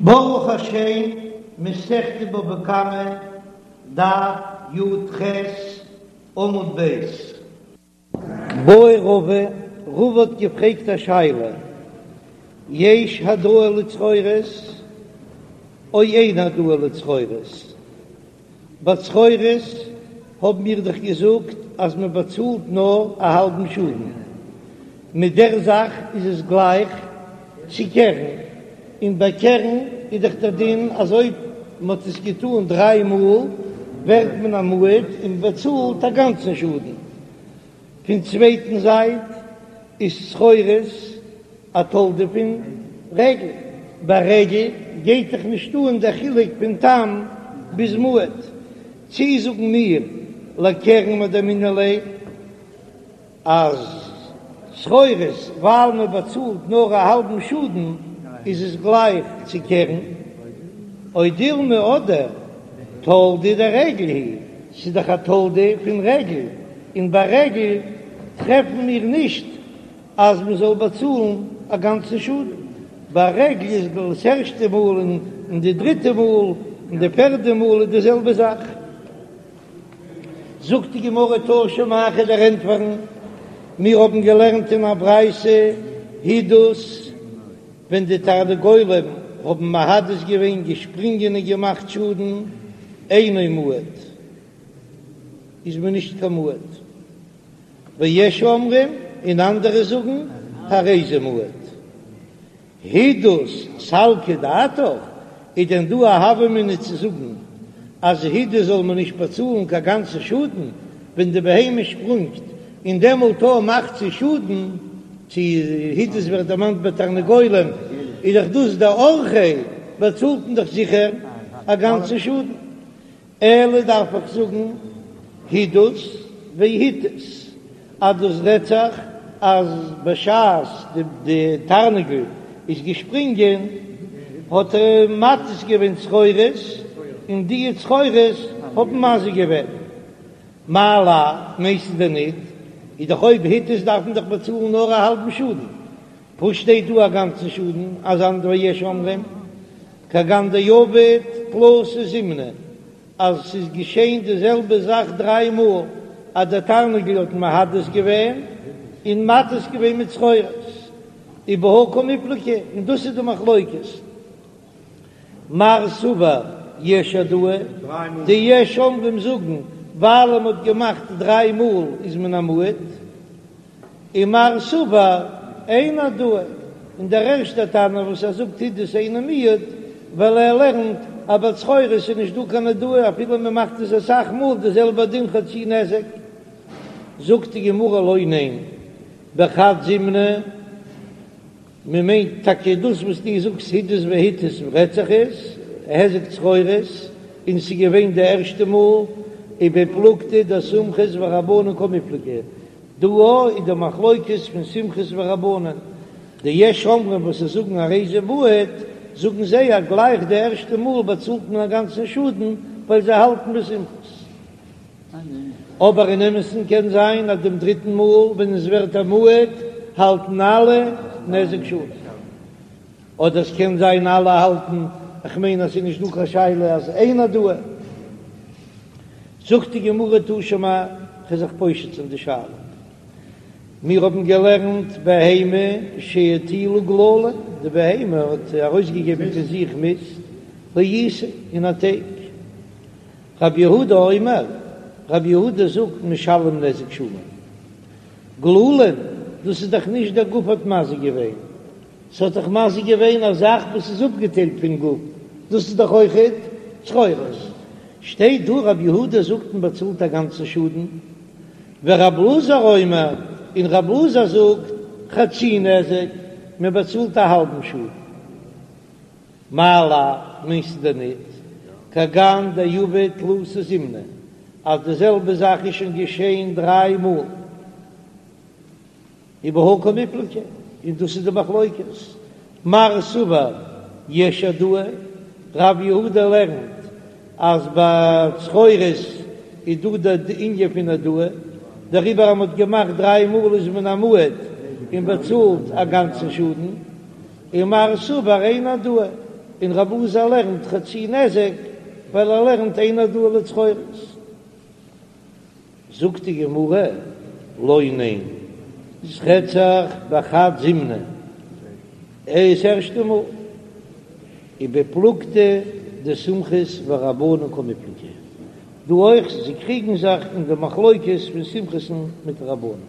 ברוך השם, מסכת בבא קמא, דף י"ח, עמוד ב'. בעי רבא, רבא האט געפרעגט א שאלה, יש העדאה לצרורות או אין העדאה לצרורות? ביי צרורות האבן מיר דאך געזאגט אז מען באצאלט נאר א האלבן שאדן, מיט דער זאך איז עס גלייך צו קרן, און ביי קרן איז דאך דער דין אז אויב מען האט עס געטאן דריי מאל ווערט מען א מועד און מען באצאלט א גאנצן שאדן. פון צווייטן זייט איז צרורות א תולדה פון רגל, ביי רגל גייט דאך נישט אן דער חילוק פון תם ביז מועד, צי זאגן מיר לקרן מדמינן ליה אז צרורות ווייל מען באצאלט נאר א האלבן שאדן איז עס גלייך צו קרן, או דילמא אדער תולדה דרגל היא, ס'איז דאך א תולדה פון רגל, און ביי רגל טרעפן מיר נישט אז מען זאל באצאלן א גאנצן שאדן, ביי רגל איז דאס ערשטע מאל און די דריטע מאל און די פערדע מאל איז די זעלבע זאך. זאגט די גמרא תא שמע כ'וועל דיר ענטפערן, מיר האבן געלערנט אין א ברייתא הידוס, ווען די תרנגולים האבן מהדס געווען געשפרינגען און געמאכט שאדן, אינו מועד, איז מען נישט קיין מועד. ויש אומרים, און אנדערע זאגן, הרי זה מועד. הידוס סלקא דעתך, איז דען דא א הוה אמינא צו זאגן אז הידוס זאל מען נישט באצאלן קיין גאנצע שאדן ווען די בהמה שפרונגט און דעמאלט אויך מאכט זי שאדן, צו הידוס ווערט דערמאנט ביי תרנגולים איז דאך דאס דאורחיה באצאלט מען דאך זיכער א גאנצע שאדן. אלא דארף איך זאגן הידוס והתיז אז דאס רעדט זיך אז בשעת די תרנגול איז געשפרינגען האט ער מתיז געווען צרורות און די צרורות האבן מזיק געווען. מאי לאו, מיינסטו דען ניט? איז דאך אויב התיז דארף מען דאך באצאלן נאר א האלבן שאדן, וואס שטייט דא א גאנצן שאדן אז אנדערע ויש אומרים כגון דעבד תלתא זימני אז ס'איז געשען די זעלבע זאך דריי מאל אז דער תרנגול האט מהדס געווען און מתיז געווען מיט צרורות ובהא קמיפלגי און דאס איז די מחלוקת מר סבר יש העדאה די יש אומרים זאגן ווייל מ'האט געמאכט דריי מאל איז מען א מועד. און מר סבר אין העדאה, און דער ערשטער תנא וואס ער זאגט הידוס אינו מועד, ווייל ער לערנט אז ביי צרורות איז נישט דא קיין העדאה אפילו מען מאכט עס אסאך מאל די זעלבע דין חצי נזק. זאגט די גמרא לא ניין, בחד זימנא, מען מיינט טאקע דאס וואס דו זאגסט הידוס והתיז רעדט זיך עס היזק צרורות און ס'איז געווען די ערשטע מאל ובפלוגתא דסומכוס ורבנן קמיפלגי דא איז די מחלוקת פון סומכוס ורבנן די יש אומרים וואס זיי זאגן הרי זה מועד זאגן זיי אז גלייך די ערשטע מאל באצאלט מען א גאנצן שאדן ווייל זיי האלטן ווי סומכוס. אבער אין אמת'ן קען זיין אז דעם דריטן מאל ווען עס ווערט א מועד האלטן אלע נזק שלם, אדער עס קען זיין אלע האלטן, איך מיין אז ס'איז נישט דא קיין שאלה אז אין העדאה. זאגט די גמרא תא שמע, כ'וועל זיך פושט זיין די שאלה. מיר האבן געלערנט בהמה שהטילה גללים, די בהמה האט ארויסגעגעבן פון זיך מיסט, לעיסה אין א טייג. רבי יהודה אומר, רבי יהודה זאגט משלם נזק שלם. גללים, דאס איז דאך נישט דער גוף האט מזיק געווען, ס'האט דאך מזיק געווען א זאך וואס איז אפגעטיילט פון גוף, דאס איז דאך אויכעט צרורות. שטייט דא רבי יהודה זאגט מען באצאלט א גאנצן שאדן, ורבי אלעזר אומר, און רבי אלעזר זאגט חצי נזק, מען באצאלט א האלבן שאדן. מאי לאו, מיינסטו דען ניט, כגון דעבד תלתא זימני, אז די זעלבע זאך איז שוין געשען דריי מאל, ובהא קמיפלגי, און דאס איז די מחלוקת, מר סבר יש העדאה, רב יהודה לערנט אז ביי צרורות איז דא די ענין פון העדאה, דעריבער אז מען האט געמאכט דריי מאל איז מען א מועד און באצאלט א גאנצן שאדן. ומר סבר אין העדאה. און רב אלעזר לערנט חצי נזק ווייל ער לערנט אין העדאה לצרורות. זאגט די גמרא, לא, ניין, ס'רעדט זיך בחד זימנא, דאס ערשטע מאל, ובפלוגתא דסומכוס ורבנן קמיפלגי, דא אויך, זיי קריגן זיך אין די מחלוקת פון סומכוס'ן מיט רבנן,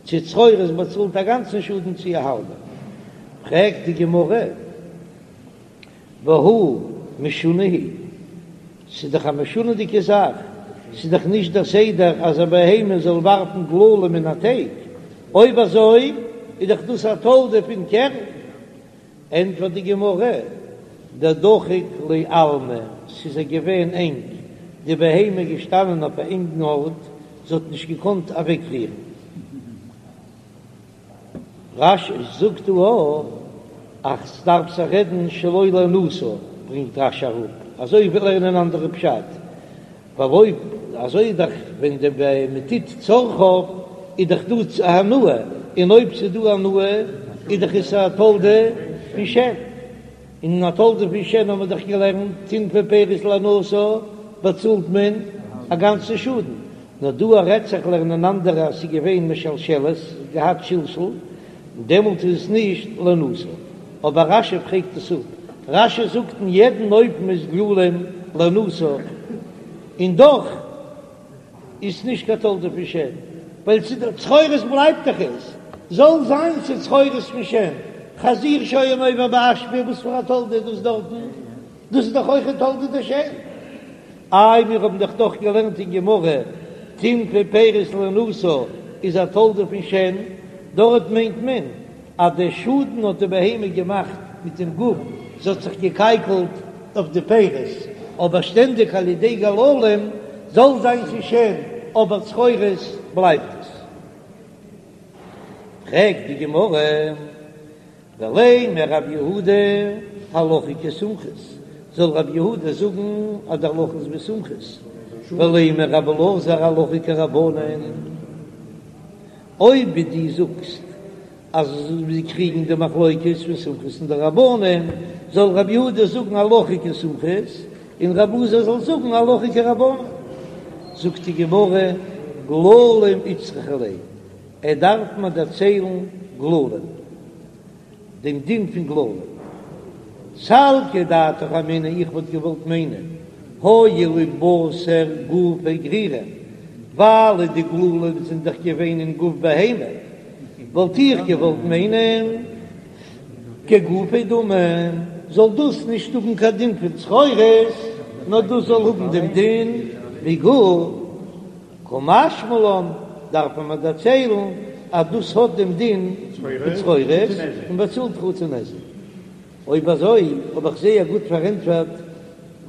צו צרורות באצאלט א גאנצן שאדן צו א האלבע, פרעגט די גמרא, והא משונה היא, ס'איז דאך א משונה'דיגע זאך, ס'איז דאך נישט דער סדר אז א בהמה זאל ווארפן גללים אין א טייג, אויב אזוי איז דאך דאס א תולדה פון קרן. ענטפערט די גמרא, דדחיק ליה עלמא, ס'איז איר געווען ענג, די בהמה איז געשטאנען אויף א ענגן ארט, זי האט נישט געקאנט אוועקרירן. רש"י זאגט דא אז ס'דארף זיך רעדן שלא להנאתה, ברענגט רש"י אראפ, אזוי וויל לערנען אנדערע פשט, ווייל אויב אזוי איז דאך ווען די בהמה טוט צרכיו איז דאך דא הנאה, און אויב ס'איז דא הנאה איז דאך עס א תולדה פון שן. און א תולדה פון שן האבן מיר דאך געלערנט, טינפה פירות להנאתה באצאלט מען א גאנצן שאדן, נאר דא רעדט זיך לערנען אנדערע אז ס'איז געווען משלשלת, געהאט שלשול, דעמאלט איז עס נישט להנאתה. אבער רש"י פרעגט עס אפ, רש"י זאגט אין יעדן אופן איז גללים להנאתה, און דאך איז נישט קיין תולדה פון שן, ווייל צו די צרורות בלייבט דאך עס, זאל זיין ס'איז צרורות פון שן, חזיר שהיה נובר באשפה, וואס פאר א תולדה איז דאס דארטן? דאס איז דאך אויך א תולדה דשן. איי מיר האבן דאך דאך געלערנט אין גמרא, טינפה פירות להנאתה איז א תולדה פון שן, דארט מיינט מען אז די שאדן האט די בהמה געמאכט מיט דעם גוף, זי האט זיך געקייקלט אויף די פירות, אבער שטענדיג על ידי גללים זאל זיין ס'איז שן, אבער צרורות בלייבט עס. פרעגט די גמרא, ולימא רב יהודה הלכה כסומכוס, זאל רב יהודה זאגן אז די הלכה איז ווי סומכוס, ולימא רב אלעזר הלכה כרבנן. אויב ווי דו זאגסט אז זיי קריגן די מחלוקת פון סומכוס און די רבנן, זאל רבי יהודה זאגן הלכה כסומכוס און רבי אלעזר זאל זאגן הלכה כרבנן. זאגט די גמרא, גללים איצטריכא ליה, ער דארף מיר דערציילן גללים. דעם דין פון גללים. סלקא דעתך אמינא, איך וואלט געוואלט מיינען, הואיל ובתר גופה גרירי, ווייל די גללים זענען דאך געווען אין גוף בהמה, וואלט איך געוואלט מיינען כגופיה דמי, זאל דאס נישט האבן קיין דין פון צרורות, נאר דאס זאל האבן דעם דין ווי גוף. קא משמע לן, דארף מען מיר דערציילן אז דאס האט דעם דין פון צרורות און באצאלט חצי נזק. אויב אזוי האב איך זייער גוט פארענטפערט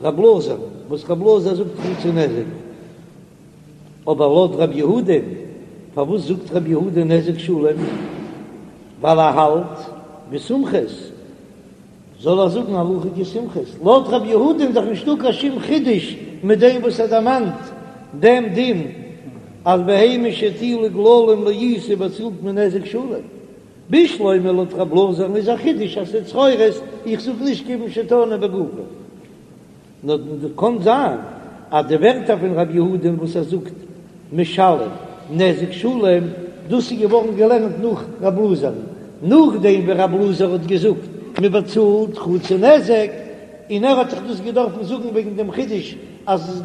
רב אלעזר, וואס רב אלעזר זאגט חצי נזק. אבער לויט רב יהודה, פארוואס זאגט רב יהודה נזק שלם? ווייל ער האלט ווי סומכוס. זאל ער זאגן הלכה כסומכוס? לויט רב יהודה איז דאך נישטא קיין שום חידוש מיט דעם וואס ער דערמאנט דעם דין אז בהמה שהטילה גללים לעיסה באצאלט מען נזק שלם. בשלמא לויט רב אלעזר'ן איז א חידוש אז ס'איז צרורות, איך זאג נישט כיוון שטענו בגופו. נאר קאן זיין אז די ווערטער פון רב יהודה'ן וואס ער זאגט משלם נזק שלם, דאס איז געווארן געלערנט נאך רב אלעזר'ן, נאכדעם ווי רב אלעזר האט געזאגט מען באצאלט חצי נזק, און ער האט זיך דאס געדארפן זאגן וועגן דעם חידוש אז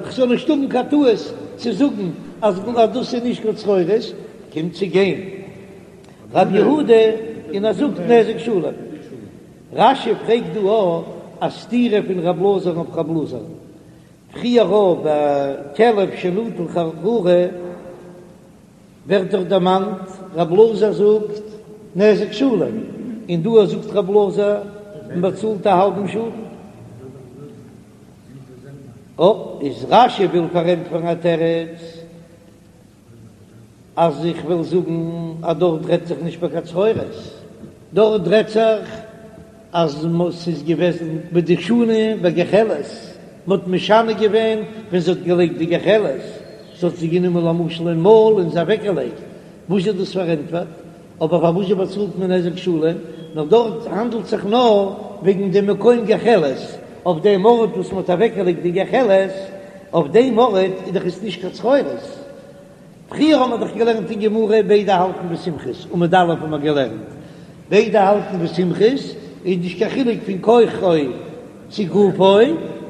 כ'זאל נישט האבן קיין טעות צו זאגן אז דאס איז נישט קיין צרורות, קומט צו גיין רב יהודה און ער זאגט נזק שלם. רש"י פרעגט דא אויך א סתירה פון רב אלעזר'ן אויף רב אלעזר'ן, פריער ביי כלב שנטל חררה ווערט דאך דערמאנט רב אלעזר זאגט נזק שלם, און דא זאגט רב אלעזר מען באצאלט א האלבן שאדן. איז רש"י וויל פארענטפערן א תירוץ. אז איך וויל זאגן אז דארט רעדט זיך נישט ביי קיין צרורות, דארט רעדט זיך אז ס'איז געוועזן בדשנה בגחלת, מ'האט משנה געווען ווען זי האט געלייגט די גחלת, זי האט זי גענומען למשל אין מויל און זי אוועקגעלייגט, וואס איז דאס פארענטפערט? אבער פארוואס זשע באצאלט מען נזק שלם? נאר דארט האנדלט זיך נאר. וועגן דעם מקום גחלת, אויף דעם ארט וואס מ'האט אוועקגעלייגט די גחלת, אויף דעם ארט איז דאך עס נישט קיין צרורות. פריער האבן מיר דאך געלערנט אין גמרא ביידע האלטן ווי סומכוס, עמוד א' האבן מיר געלערנט ביידע האלטן ווי סומכוס, איז נישט קיין חילוק פון כוחו צו גופו,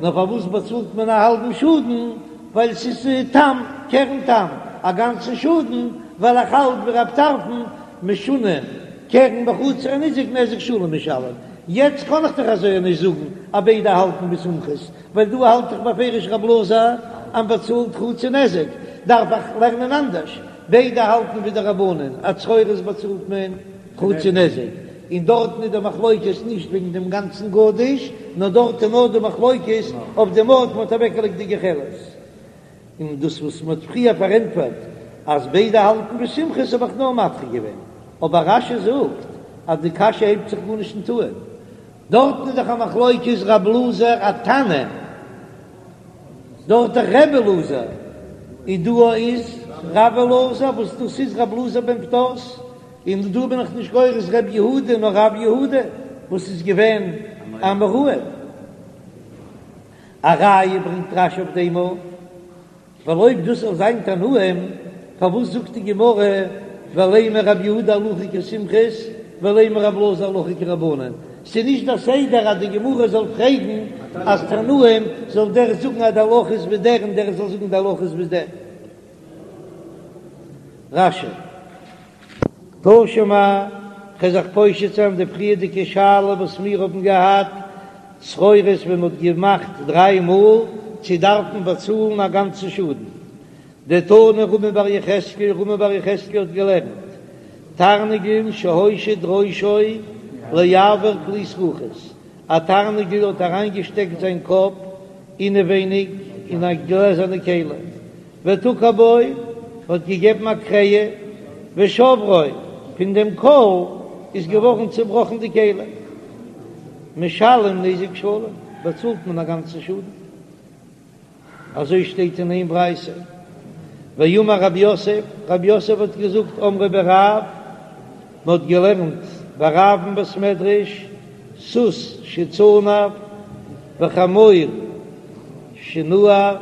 נאר פארוואס באצאלט מען א האלבן שאדן, ווייל ס'איז תם, קרן תם, א גאנצן שאדן, ווייל איך האלט ווי רב טרפון, משונה קרן בחצר הניזק נזק שלם משלם, יעצט קען איך דאך אזוי נישט זאגן אז ביידע האלטן ווי סומכוס, ווייל דא האלט איך בפירוש רב אלעזר אז מ'באצאלט חצי נזק, דארף איך לערנען אנדערש, ביידע האלטן ווי די רבנן אז צרורות באצאלט מען חצי נזק, און דארטן איז די מחלוקת נישט וועגן דעם גאנצן גדיש, נאר דארט איז נאר די מחלוקת אויף דעם ארט מ'האט אוועקגעלייגט די גחלת. און דאס וואס מ'האט פריער פארענטפערט אז ביידע האלטן ווי סומכוס האב איך נאר מדחה געווען, אבער רש"י זאגט אז די קשיא הייבט זיך גארנישט אן טוען, דארטן איז דאך א מחלוקת רב אלעזר א תנא, דארט דאך רבי אלעזר, און דא איז רב אלעזר וואס דאס איז רב אלעזר בן פדת, און דא בין איך נישט גורס ר' יהודה נאר רב יהודה וואס איז געווען אן אמורא. א ראיה ברענגט רש"י אויף דעם אויך. ווייל אויב דאס זאל זיין תנאים, פארוואס זאגט די גמרא ולימא רב יהודה הלכה כסומכוס ולימא רב אלעזר הלכה כרבנן? ס'איז נישט דער סדר אז די גמרא זאל פרעגן אז תנאים זאל דער זאגן אז די הלכה איז ווי דער און דער זאל זאגן די הלכה איז ווי דער. רש"י. תא שמע, כ'וועל זיך פושט זיין די פריערדיגע שאלה וואס מיר האבן געהאט, צרורות ווען מ'האט געמאכט דריי מאל, צו דארף מען באצאלן א גאנצן שאדן. דתני רמי בר יחזקאל, רמי בר יחזקאל האט געלערנט, תרנגול שהושיט ראשו לאויר כלי זכוכית, א תרנגול האט אריינגעשטעקט זיין קאפ אינעווייניג אין א גלעזערנע כלי, ותקע בו, האט געגעבן א קרעע, ושברו, פון דעם קול איז געווארן צעבראכן די כלי. משלם נזק שלם, באצאלט מען א גאנצן שאדן. אזוי שטייט אין איין ברייתא. ואמר רב יוסף, רב יוסף האט געזאגט, אמרו בי רב, מען האט געלערנט ביי רב אין בית מדרש, סוס שצנף וחמור שנער,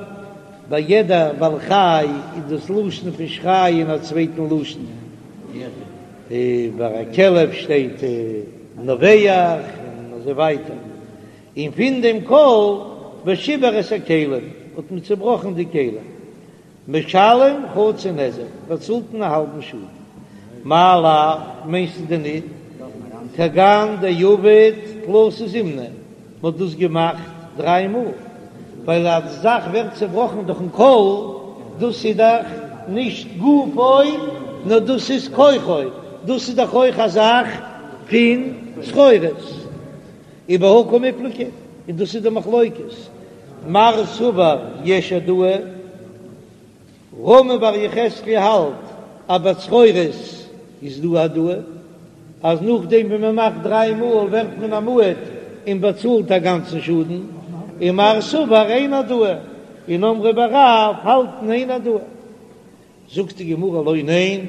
ביי יעדע בעל חי איז דאס לשון פון שרייען א צווייטן לשון, ביי א כלב שטייט נובח און אזוי ווייטער, און פון דעם קול ושיבר את הכלים האט מען צובראכן די כלים. משלם חצי נזק, באצאלט מען א האלבן שאדן. מאי לאו, מיינסטו דען ניט? כגון דעבד תלתא זימני, מען האט דאס געמאכט דריי מאל, ווייל אז די זאך ווערט צעבראכן דורכן קול, דאס איז דאך נישט גופו, נאר דאס איז כוחו, דאס איז דאך אויך א זאך פון צרורות. ובהא קמיפלגי, און דאס איז די מחלוקת, מר סבר יש העדאה, רמי בר יחזקאל האלט אז ביי צרורות איז דא העדאה, אז נאכדעם ווען מען מאכט דריי מאל ווערט מען א מועד און באצאלט א גאנצן שאדן, און מר סבר אין העדאה, און אמרי בי רב האלטן אין העדאה. זאגט די גמרא לא ניין,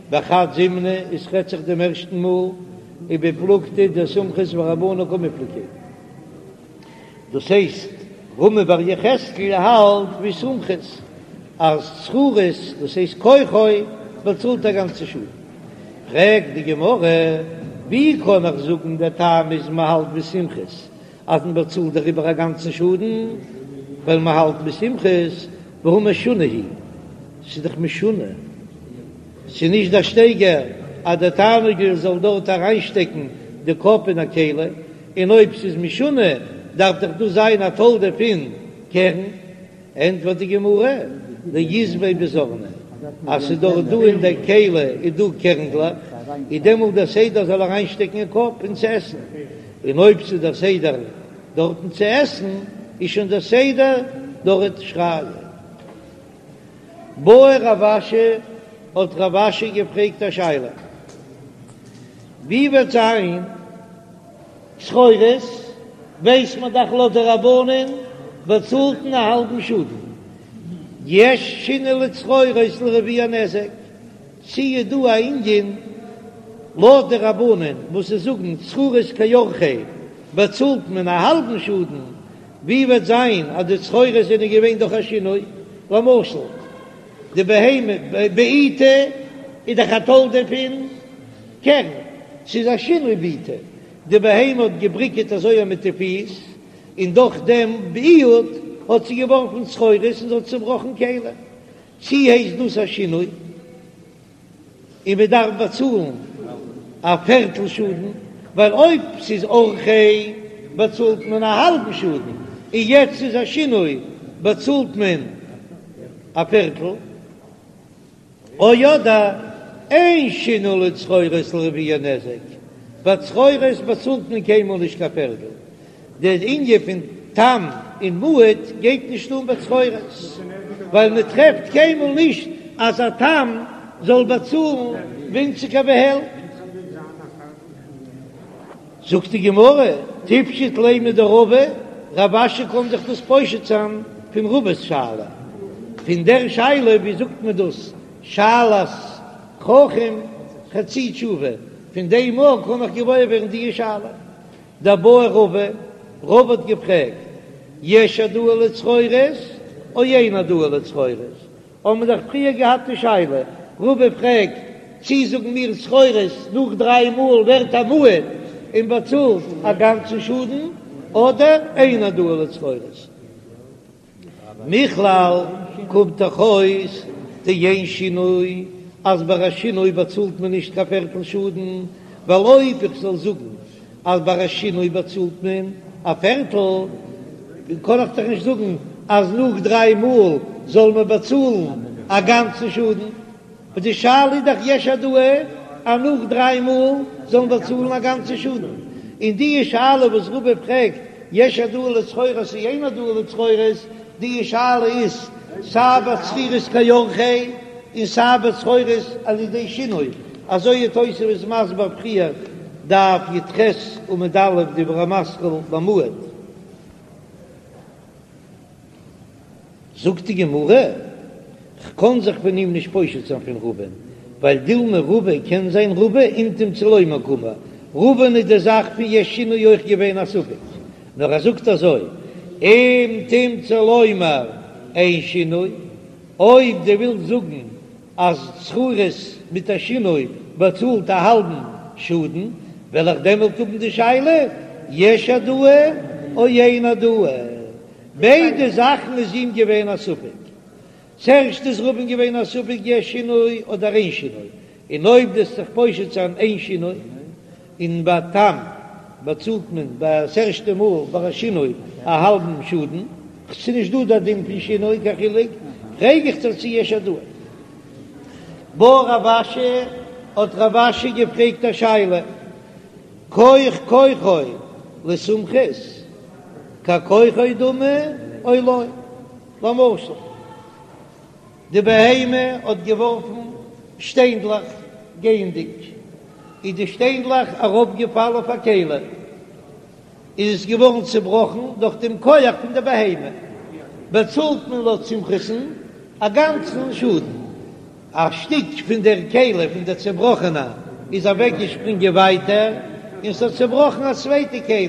בחד זימנא עס רעדט זיך דעם ערשטן מאל, ובפלוגתא דסומכוס ורבנן קמיפלגי, דאס הייסט רמי בר יחזקאל האלט ווי סומכוס אז צרורות דאס הייסט כוחו באצאלט א גאנצע שאדן, פרעגט די גמרא ווי קען איך זאגן דער טעם איז מען האלט ווי סומכוס אז מען באצאלט דעריבער א גאנצן שאדן, ווייל מען האלט ווי סומכוס, והא משונה הוא, ס'איז דאך משונה, ס'איז נישט דער שטייגער אז דער תרנגול זאל דארט אריינשטעקן די קאפ אין א כלי, און אויב ס'איז משונה דארף דאך דאס זיין א תולדה פון קרן. ענטפערט די גמרא, דאית ביה בזרני, אז ס'איז דאך דא אין דער כלי איז דא קערנדלעך, איז דעמאלט דער סדר זאל אריינשטעקן אין קאפ און צו עסן, און אויב ס'איז דער סדר דארטן צו עסן, איז שוין דער סדר דארט שרייען. בעי רב אשי, האט רב אשי געפרעגט א שאלה, ווי וועט זיין צרורות ווייסט מען דאך לויט די רבנן באצאלט מען א האלבן שאדן, יש שינוי לצרורות לרביע נזק, צי איז דא א ענין לויט די רבנן וואס זיי זאגן צרורות כאורחיה. באצאלט מען א האלבן שאדן, ווי וועט זיין אז די צרורות זענען געווען דורך א שינוי, למשל די בהמה בעיטה איז דאך א תולדה פון קרן, ס'איז א שינוי בעיטה, די בהמה האט געבריקעט אזוי מיט די פיס, און דורך דעם ביעוט האט זי געווארפן צרורות און זי האט צעבראכן כלים, צי הייסט דאס א שינוי און מען דארף באצאלן א פערטל שאדן, ווייל אויב ס'איז אורחיה באצאלט מען א האלבן שאדן, און יעצט איז א שינוי באצאלט מען א פערטל. או אדער אין שינוי לצרורות לרביע נזק, ביי צרורות באצאלט מען קיינמאל נישט קיין פערטל, דער ענין פון תם און מועד גייט נישט אן ביי צרורות, ווייל מען טרעפט קיינמאל נישט אז א תם זאל באצאלן ווינציגער ווי העלפט. זאגט די גמרא, תיפשוט ליה מדרבא, רב אשי קען זיך דאס פושט זיין פון רבא'ס שאלה, פון דער שאלה ווי זאגט מען דאס שאלת חכם חצי תשובה, פון דעם מאל קען איך געוואויר ווערן די שאלה. דבעי רבא, רבא האט געפרעגט, יש העדאה לצרורות או אין העדאה לצרורות? האבן מיר דאך פריער געהאט די שאלה, רבא פרעגט, צי זאגן מיר צרורות נאך דריי מאל ווערט א מועד און באצאלט א גאנצן שאדן, אדער אין העדאה לצרורות? מכלל קומט דאך אויס דאין שינוי, אז ביי א שינוי באצאלט מען נישט קיין פערטל שאדן, ווייל אויב איך זאל זאגן אז ביי א שינוי באצאלט מען א פערטל, קען איך דאך נישט זאגן אז נאך דריי מאל זאל מען באצאלן א גאנצן שאדן, און די שאלה איז דאך יש העדאה אז נאך דריי מאל זאל מען באצאלן א גאנצן שאדן, און די שאלה וואס רבא פרעגט יש העדאה לצרורות או אין העדאה לצרורות, די שאלה איז סיי ביי צרורות כאורחיה און סיי ביי צרורות על ידי שינוי, אזוי איז תוספות מסביר פריער דף י"ח עמוד א' דיבור המתחיל במועד. זאגט די גמרא, כ'קען זיך פון אים נישט פושט זיין פון רבא'ן, ווייל דילמא רבא קען זיין רבא אם תמצא לומר קאמר, רבא'ן איז די זאך פון יש שינוי אויך געווען א ספק, נאר ער זאגט אזוי, אם תמצא לומר אין שינוי, אויב דו ווילסט זאגן אז צרורות מיט א שינוי באצאלט א האלבן שאדן, וועל איך דעמאלט האבן די שאלה יש העדאה או אין העדאה. ביידע זאכן איז אים געווען א ספק. צוערשט איז רבא'ן געווען א ספק יש שינוי אדער אין שינוי, און אויב דו'סט זיך פושט זיין אין שינוי, און ביי תם באצאלט מען ביי ס'ערשטע מאל ביי א שינוי א האלבן שאדן, ס'איז נישט דא דער דין פון שינוי קיין חילוק, פרעג איך דיר צו יש העדאה. בעי רב אשי, האט רב אשי געפרעגט א שאלה, כח כוחו לסומכוס ככוחו דמי או לא? למשל. די בהמה האט געווארפן שטיינדלעך גייענדיג, איז די שטיינדלעך אראפגעפאלן אויף א כלי, איז עס געווארן צעבראכן דורך דעם כח פון די בהמה, באצאלט מען לויט סומכוס'ן א גאנצן שאדן. א שטיק פון דער כלי פון דער צעבראכענע איז אוועקגעשפרינגען ווייטער און ס'האט צעבראכן א צווייטע כלי,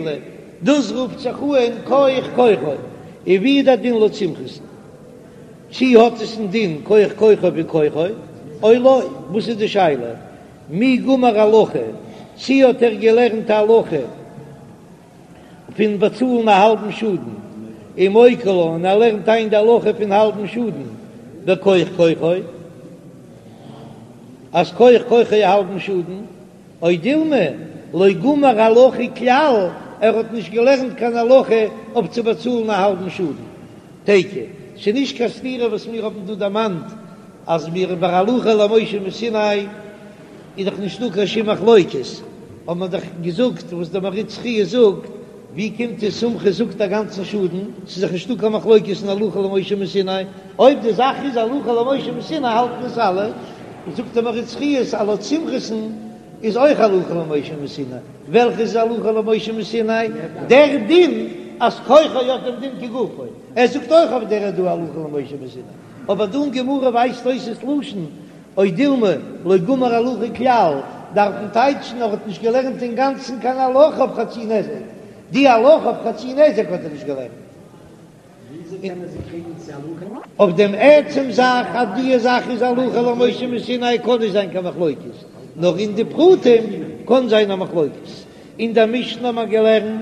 דאס רופט זיך אן כח כוחו, און ווי איז דער דין לויט סומכוס'ן? צי האט עס א דין כח כוחו ווי כוחו או לא? וואס איז די שאלה? מי גמר הלכה, צי האט ער געלערנט א הלכה פון באצאלן א האלבן שאדן, ומוקי לה, און ער לערנט איין די הלכה פון האלבן שאדן בכח כוחו, אז כח כוחו א האלבן שאדן, או דילמא לא גמר הלכה כלל, ער האט נישט געלערנט קיין הלכה אויף צו באצאלן א האלבן שאדן. תיקו, ס'איז נישט קיין סתירה וואס מיר האבן דא דערמאנט אז מיר ביי הלכה למשה מסיני איז דאך נישטא קיין שום מחלוקת, האבן מיר דאך געזאגט וואס דער מהרי"ץ חייא זאגט, ווי קומט עס סומכוס זאגט א גאנצן שאדן, ס'איז דאך נישטא קיין מחלוקת אין הלכה למשה מסיני, אויב די זאך איז הלכה למשה מסיני האלטן עס אלע, זאגט דער מהרי"ץ חיות אז לויט סומכוס'ן איז אויך הלכה למשה מסיני, וועלכע איז הלכה למשה מסיני? דער דין אז כוחו האט דעם דין כגופו, ער זאגט אויך אויף דער איז דא הלכה למשה מסיני, אבער דא אין גמרא ווייזט אויס עס לשון או דילמא לא גמר הלכה כלל, דארף מען טייטשן ער האט נישט געלערנט אינגאנצן קיין הלכה אויף חצי נזק. די הלכה אויף חצי נזק האט ער נישט געלערנט. אויף דעם עצם זאך אז די זאך איז הלכה למשה מסיני קען נישט זיין קיין מחלוקת, נאר אין די פרטים קען זיין א מחלוקת. אין דער משנה האט מען געלערנט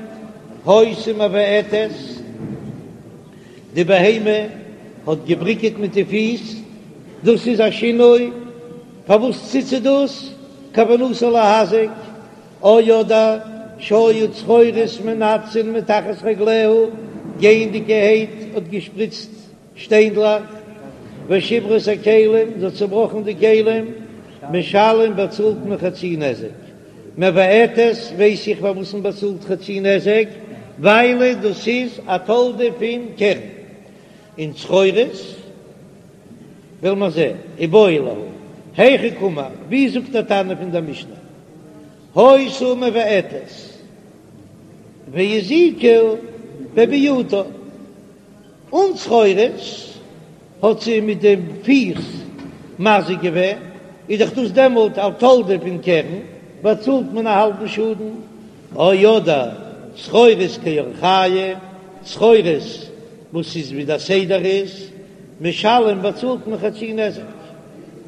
היתה מבעטת, די בהמה האט געבריקעט מיט די פיס, דאס איז א שינוי, פארוואס טוט זי דאס? כוונתה להזיק, או אדער שהיו צרורות מנתצין מתחת רגליה, גייענדיגערהייט האט געשפריצט שטיינדלעך, ושברה את הכלים, זי האט צובראכן די כלים, משלם באצאלט מען חצי נזק. מבעטת ווייס איך פארוואס מען באצאלט חצי נזק, ווייל דאס איז א תולדה פון קרן, און צרורות וועל מיר זען, איבעיא להו, היכי קאמר, ווי זאגט דער תנא פון דער משנה, היתה מבעטת והזיקה בביעוטה, אן צרורות האט זי מיט די פיס מזיק געווען, איז דאך דאס דעמאלט א תולדה פון קרן, באצאלט מען א האלבן שאדן, או אדער צרורות כי אורחייהו, צרורות וואס איז ווי דער סדר איז, משלם באצאלט מען חצי נזק.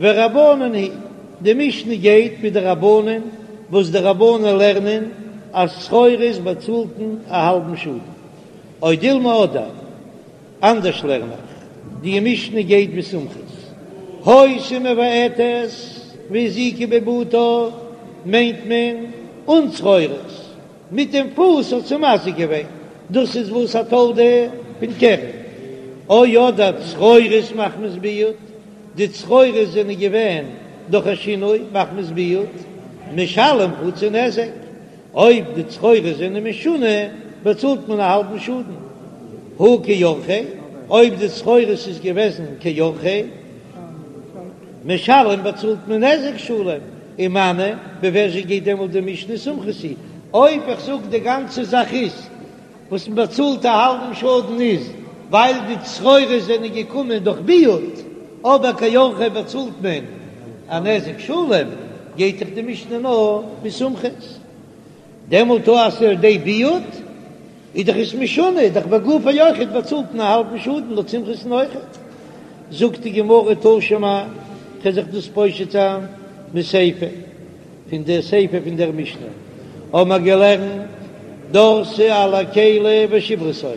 ורבנן היא, די משנה גייט מיט די רבנן, וואס די רבנן לערנען אז צרורות באצאלט מען א האלבן שאדן. או דילמא אדער אנדערש לערן איך, די משנה גייט ווי סומכוס, היתה מבעטת והזיקה בבעוטה מיינט מען אן צרורות, מיט דעם פוס האט זי מזיק געווען, דאס איז וואס א תולדה פון קרן, או אדער צרורות מחמת ביעוט, די צרורות זענען געווען דורך א שינוי מחמת ביעוט, משלם חצי נזק, אויב די צרורות זענען משונה באצאלט מען א האלבן שאדן, הא כי אורחיה, אויב די צרורות איז געוועזן כי אורחיה, משלם באצאלט מען נזק שלם, ומני, ווי ווער גייט דעמאלט די משנה סומכוס היא, אויב איך זאג די גאנצע זאך איז וואס מען באצאלט א האלבן שאדן איז ווייל די צרורות זענען געקומען דורך ביעוט, אבער כי אורחיה באצאלט מען א נזק שלם, גייט דאך די משנה נאר ווי סומכוס. דעמאלט אז ס'איז על ידי ביעוט איז דאך עס משונה, איז דאך בגופו אויכעט באצאלט מען א האלבן שאדן לויט סומכוס'ן אויכעט. זאגט די גמרא תא שמע, כ'וועל זיך דאס פושט זיין מסיפא. פון דער סיפא פון דער משנה האבן מיר געלערנט, דרסה על הכלי ושברתו,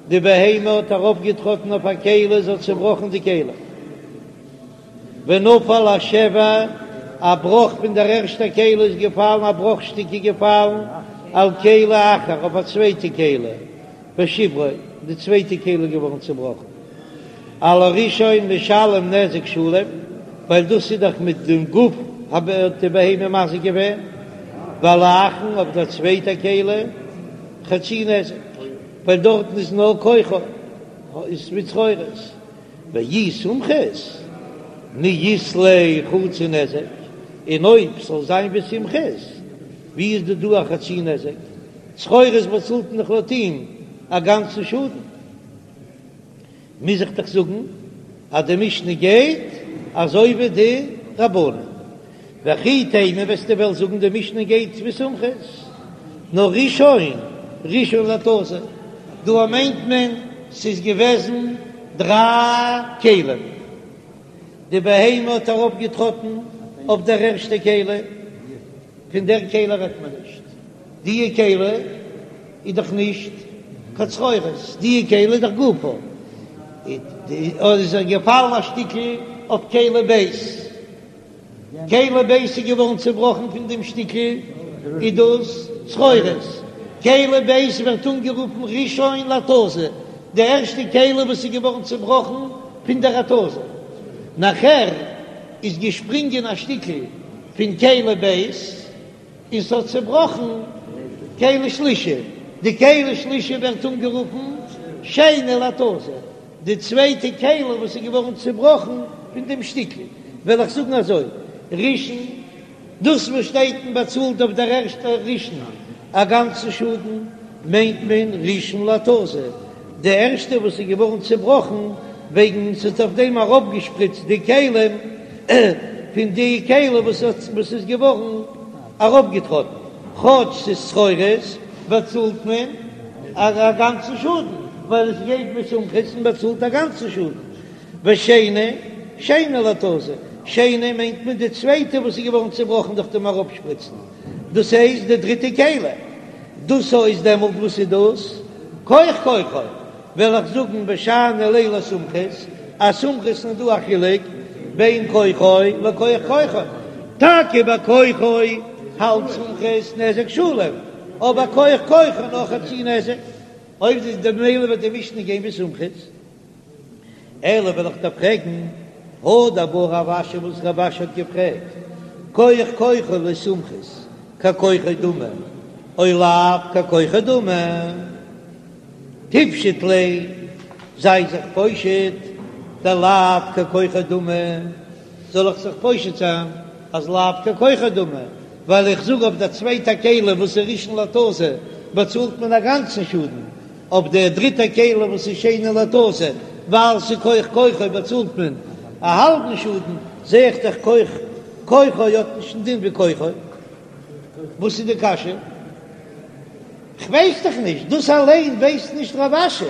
די בהמה האט ארויפגעטראטן אויף א כלי, זי האט צעבראכן די כלי, ונפל השבר, א בראך פון דער ערשטער כלי איז געפאלן, א בראך שטיק איז געפאלן, על כלי אחר, אויף א צווייטע כלי. ושברו, די צווייטע כלי איז געווארן צובראכן. על הראשון משלם נזק שלם, ווייל דאס איז דאך מיט דעם גוף האט די בהמה מזיק געווען, ועל האחרון אויף דער צווייטע כלי חצי נזק, ווייל דארטן איז נאר כוחו איז מיט צרורות. ואי סומכוס מי אית ליה חצי נזק, און אויב ס'זאל זיין ווי סומכוס, ווי איז דא דא א חצי נזק? צרורות באצאלט מען דאך לויט אים א גאנצן שאדן, מוז איך דאך זאגן אז די משנה גייט אזוי ווי די רבנן. וכי תימא וועסטו וועלן זאגן די משנה גייט ווי סומכוס, נאר ראשון ראשון להתזה, דא מיינט מען ס'איז געוועזן דריי כלים, די בהמה האט ארויפגעטראטן אויף דער ערשטע כלי, פון דער כלי רעדט מען נישט, די כלי איז דאך נישט קיין צרורות, די כלי איז דאך גופו, איז ער געפאלן א שטיקל אויף כלי ב', כלי ב' איז געווארן צובראכן פון דעם שטיקל, איז דאס צרורות, כלי ב' ווערט אנגערופן ראשון להתזה, די ערשטע כלי וואס איז געווארן צובראכן פון דער התזה, נאכער איז געשפרינגען א שטיקל פון כלי ב' און ס'האט צעבראכן כלי שלישי, די כלי שלישי ווערט אנגערופן שני להתזה, די צווייטע כלי וואס איז געווארן צעבראכן פון דעם שטיקל, וועל איך זאגן אזוי, ראשון, דאס וואס שטייט מען באצאלט אויף דער ערשטער ראשון א גאנצן שאדן, מיינט מען ראשון להתזה, די ערשטע וואס איז געווארן צעבראכן וועגן ס'האט אויף דעם ארויפגעשפריצט די כלים פון די כלי וואס איז געווארן ארויפגעטראטן, כאטש ס'איז צרורות. באצאלט מען א גאנצן שאדן, ווייל עס גייט ווי סומכוס און באצאלט א גאנצן שאדן. ושני, שני להתזה, שני מיינט מען די צווייטע וואס איז געווארן צעבראכן דורך דעם אראפשפריצן, דאס הייסט די דריטע כלי, דאס איז דעמאלט וואס איז דאס? כח כוחו, וועל איך זאגן ושאני ליה לסומכוס, אז סומכוס איז דא א חילוק בין כוחו לכח כוחו, טאקע ביי כוחו האלט סומכוס נזק שלם, אבער כח כוחו נאר חצי נזק, אויב איז ממילא וועט די משנה גיין ווי סומכוס. אלא וועל איך דיר פרעגן, הא דבעי רב אשי וואס רב אשי האט געפרעגט, כח כוחו לסומכוס ככוחו דמי, או לאו ככוחו דמי, תפשוט ליה, זיי זיך פושט, דלאו ככוחו דמי, זאל איך זיך פושט זיין אז לאו ככוחו דמי, ווייל איך זאג אויף דער צווייטע כלי וואס איז ראשון להתזה באצאלט מען א גאנצן שאדן, אויף דער דריטער כלי וואס איז שני להתזה, ווייל ס'איז כח כוחו באצאלט מען א האלבן שאדן, זע איך דאך כח כוחו האט נישט דעם דין ווי כוחו. וואס איז די קשיא? כ'ווייס דאך נישט, דאס אליין ווייסט נישט רב אשי.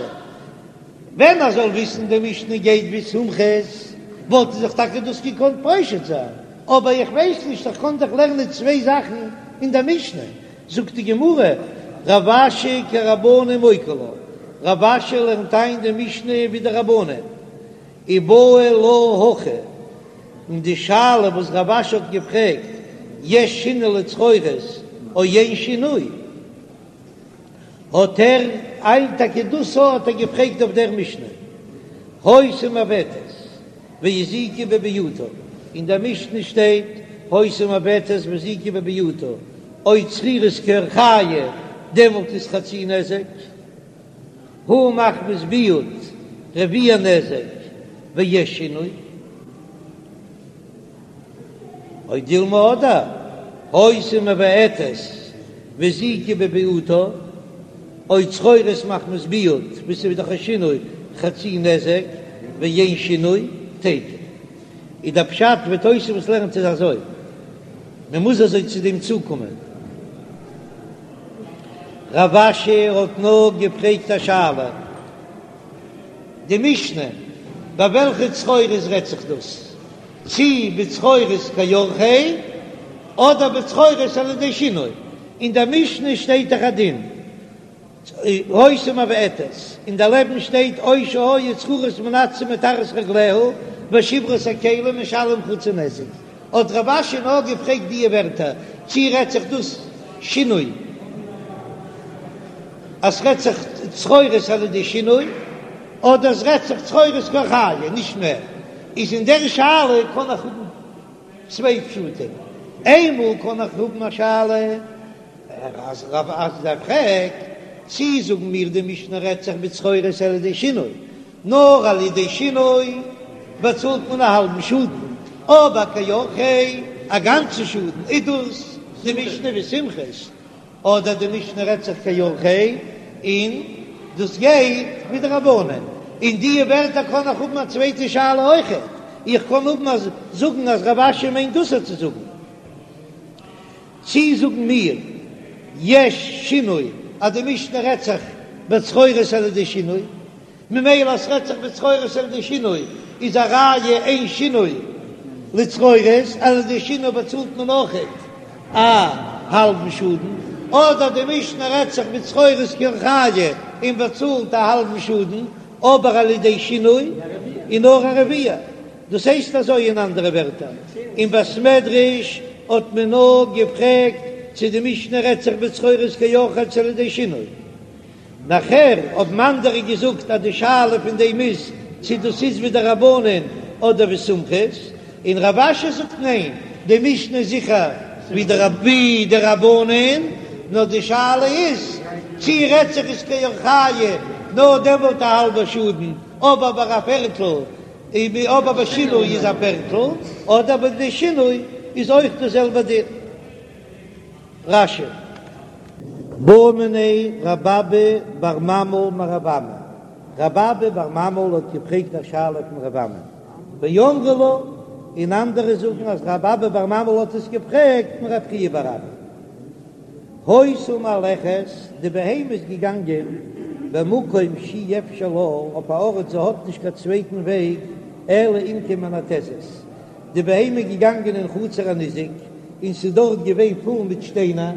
ווען ער זאל וויסן די משנה גייט ווי סומכוס, וואלט ער זיך טאקע דאס געקאנט פושט זיין, אבער איך ווייס נישט, איך קען דאך לערנען צוויי זאכן אין דער משנה. זאגט די גמרא, רב אשי כרבנן מוקי לה, רב אשי לערנט איין די משנה ווי די רבנן, ובעי לה הכי, און די שאלה וואס רב אשי האט געפרעגט, יש שינוי לצרורות או אין שינוי, האט ער איין טאקע דאס האט ער געפרעגט אויף דער משנה, היתה מעוותת והזיקה בביעוטה, אין דער משנה שטייט היתה מעוותת והזיקה בביעוטה, או צרורות כי אורחייהו, דעמאלט איז חצי נזק, הא מחמת ביעוט רביע נזק ויש שינוי, או דילמא אדער היתה מבעטת והזיקה בביעוטה, או צרורות מחמת ביעוט וואס איז דאך א שינוי חצי נזק ואין שינוי תיקו. איז דער פשט ווי תוספות לערנט איז אזוי, מען מוז אזוי צו דעם צוקומען. רב אשי האט נאר געפרעגט א שאלה, די משנה ביי וועלכע צרורות רעדט זיך דאס? צי בצרורות כאורחיה אדער בצרורות על ידי שינוי, אין דער משנה שטייט דאך א דין היתה מבעטת, און דערלעבן שטייט או שהיו צרורות מנתצין מתחת רגליה ושברה את הכלים משלם חצי נזק, האט רב אשי נאר געפרעגט דיע ווערטער, צי רעדט זיך דאס שינוי אז ס'רעדט זיך צרורות על ידי שינוי, אדער ס'רעדט זיך צרורות כאורחיה, נישט מער. איז אין דער שאלה קען איך האבן צוויי פשטים, איינמאל קען איך האבן א שאלה אז רב אשי פרעגט, צי זאגן מיר די משנה רעדט זיך בצרורות על ידי שינוי, נאר על ידי שינוי באצאלט מען א האלבן שאדן, אבער כאורחיה א גאנצן שאדן, איז דאס די משנה ווי סומכוס, אדער די משנה רעדט זיך כאורחיה און דאס גייט ווי די רבנן, אין די ווערטער קען איך האבן א צווייטע שאלה אויכעט, איך קען האבן אז זאגן אז רב אשי מיינט דאס צו זאגן, צי זאגן מיר יש שינוי אז די משנה רעדט זיך בצרורות על ידי שינוי, ממילא אז ס'רעדט זיך בצרורות על ידי שינוי איז א ראיה אין שינוי לצרורות, על ידי שינוי באצאלט מען אויכעט א האלבן שאדן, אדער די משנה רעדט זיך בצרורות כאורחיה און באצאלט א האלבן שאדן, אבער על ידי שינוי איז נאר א רביע. דאס הייסט אזוי אין אנדערע ווערטער, אין בית מדרש האט מען נאר געפרעגט צו די משנה רעדט זיך בצרורות כאורחיה צו על ידי שינוי. נאכער האבן אנדערע געזאגט אז די שאלה פון דעם איז צו דאס איז ווי די רבנן אדער ווי סומכוס, און רב אשי זאגט ניין, די משנה איז זיכער ווי די רבנן, נאר די שאלה איז צו רעדט זיך עס כאורחיה נאר דעמאלט א האלבע שאדן, אבער ביי א פערטל אבער ביי שינוי איז א פערטל, אדער ביי די שינוי איז אויך די זעלבע דין. רש"י. בעא מיניה רב אבא בר ממל מרב אמי, רב אבא בר ממל האט געפרעגט א שאלה פון רב אמי, ואמרי לה, און אנדערע זאגן אז רב אבא בר ממל האט עס געפרעגט פון רב חייא בר אבא. היתה מהלכת, די בהמה איז געגאנגען במקום שאי אפשר לה, אויף א ארט זי האט נישט קיין צווייטן וועג אלא אם כן מנתזת, די בהמה איז געגאנגען אין חצר הניזק און ס'איז דארט געווען פול מיט שטיינער,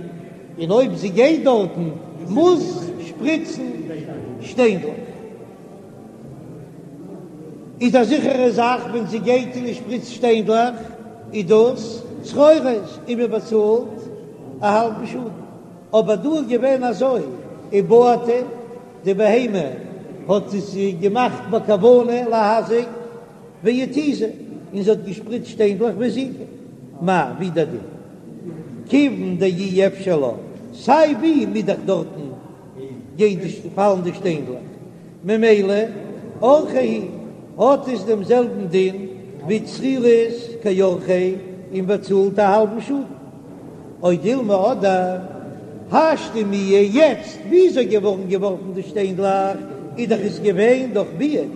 און אויב זי גייט דארטן מוז שפריצן שטיינדלעך. איז א זיכערע זאך ווען זי גייט און שפריצט שטיינדלעך איז דאס צרורות און מען באצאלט א האלבן שאדן, אבער דא איז געווען אזוי ובעטה די בהמה האט עס געמאכט בכוונה להזיק והתיזה און זי האט געשפריצט שטיינדלעך והזיקה מאי ווי דער דין כיוון דאי אפשר לה סיי ווי מוז דאך דארטן גיין די פאלן די שטיינדלעך ממילא אורחיה הוא האט עס דעם זעלבן דין ווי צרורות כאורחיה און באצאלט א האלבן שאדן. או דילמא אדער השתא מיהא יעצט וויאזוי געווארן געווארפן די שטיינדלעך איז דאך עס געווען דורך ביעוט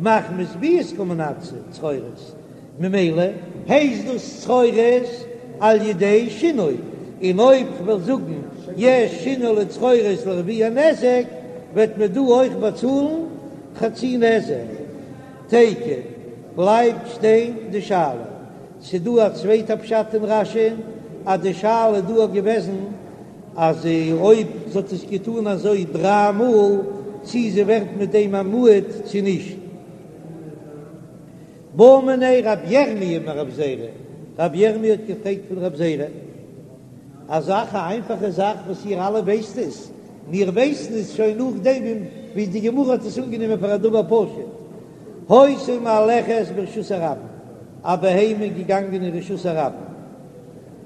מחמת ביעוט קא מנתזי צרורות ממילא הייסט דאס צרורות על ידי שינוי, און אויב כ'וועל זאגן יש שינוי לצרורות לרביע נזק, וועט מען דא אויך באצאלן חצי נזק. תיקו, בלייבט שטיין די שאלה. ס'דא א צווייטע פשט אין רש"י אז די שאלה איז דא געוועזן אז אויב זי האט עס געטאן אזוי דריי מאל צי זי ווערט מיט דעם א מועד צי נישט. בעא מיניה רב ירמי' מרב זירא, רב ירמי' האט געפרעגט פון רב זירא א זאך, א איינפאכע זאך וואס איר אלע ווייסט עס, מיר ווייסן עס שוין נאכדעם ווי די גמרא האט עס אנגענומען פאר א דבר פשוט, היתה מהלכת ברשות הרבים, א בהמה איז געגאנגען אין רשות הרבים,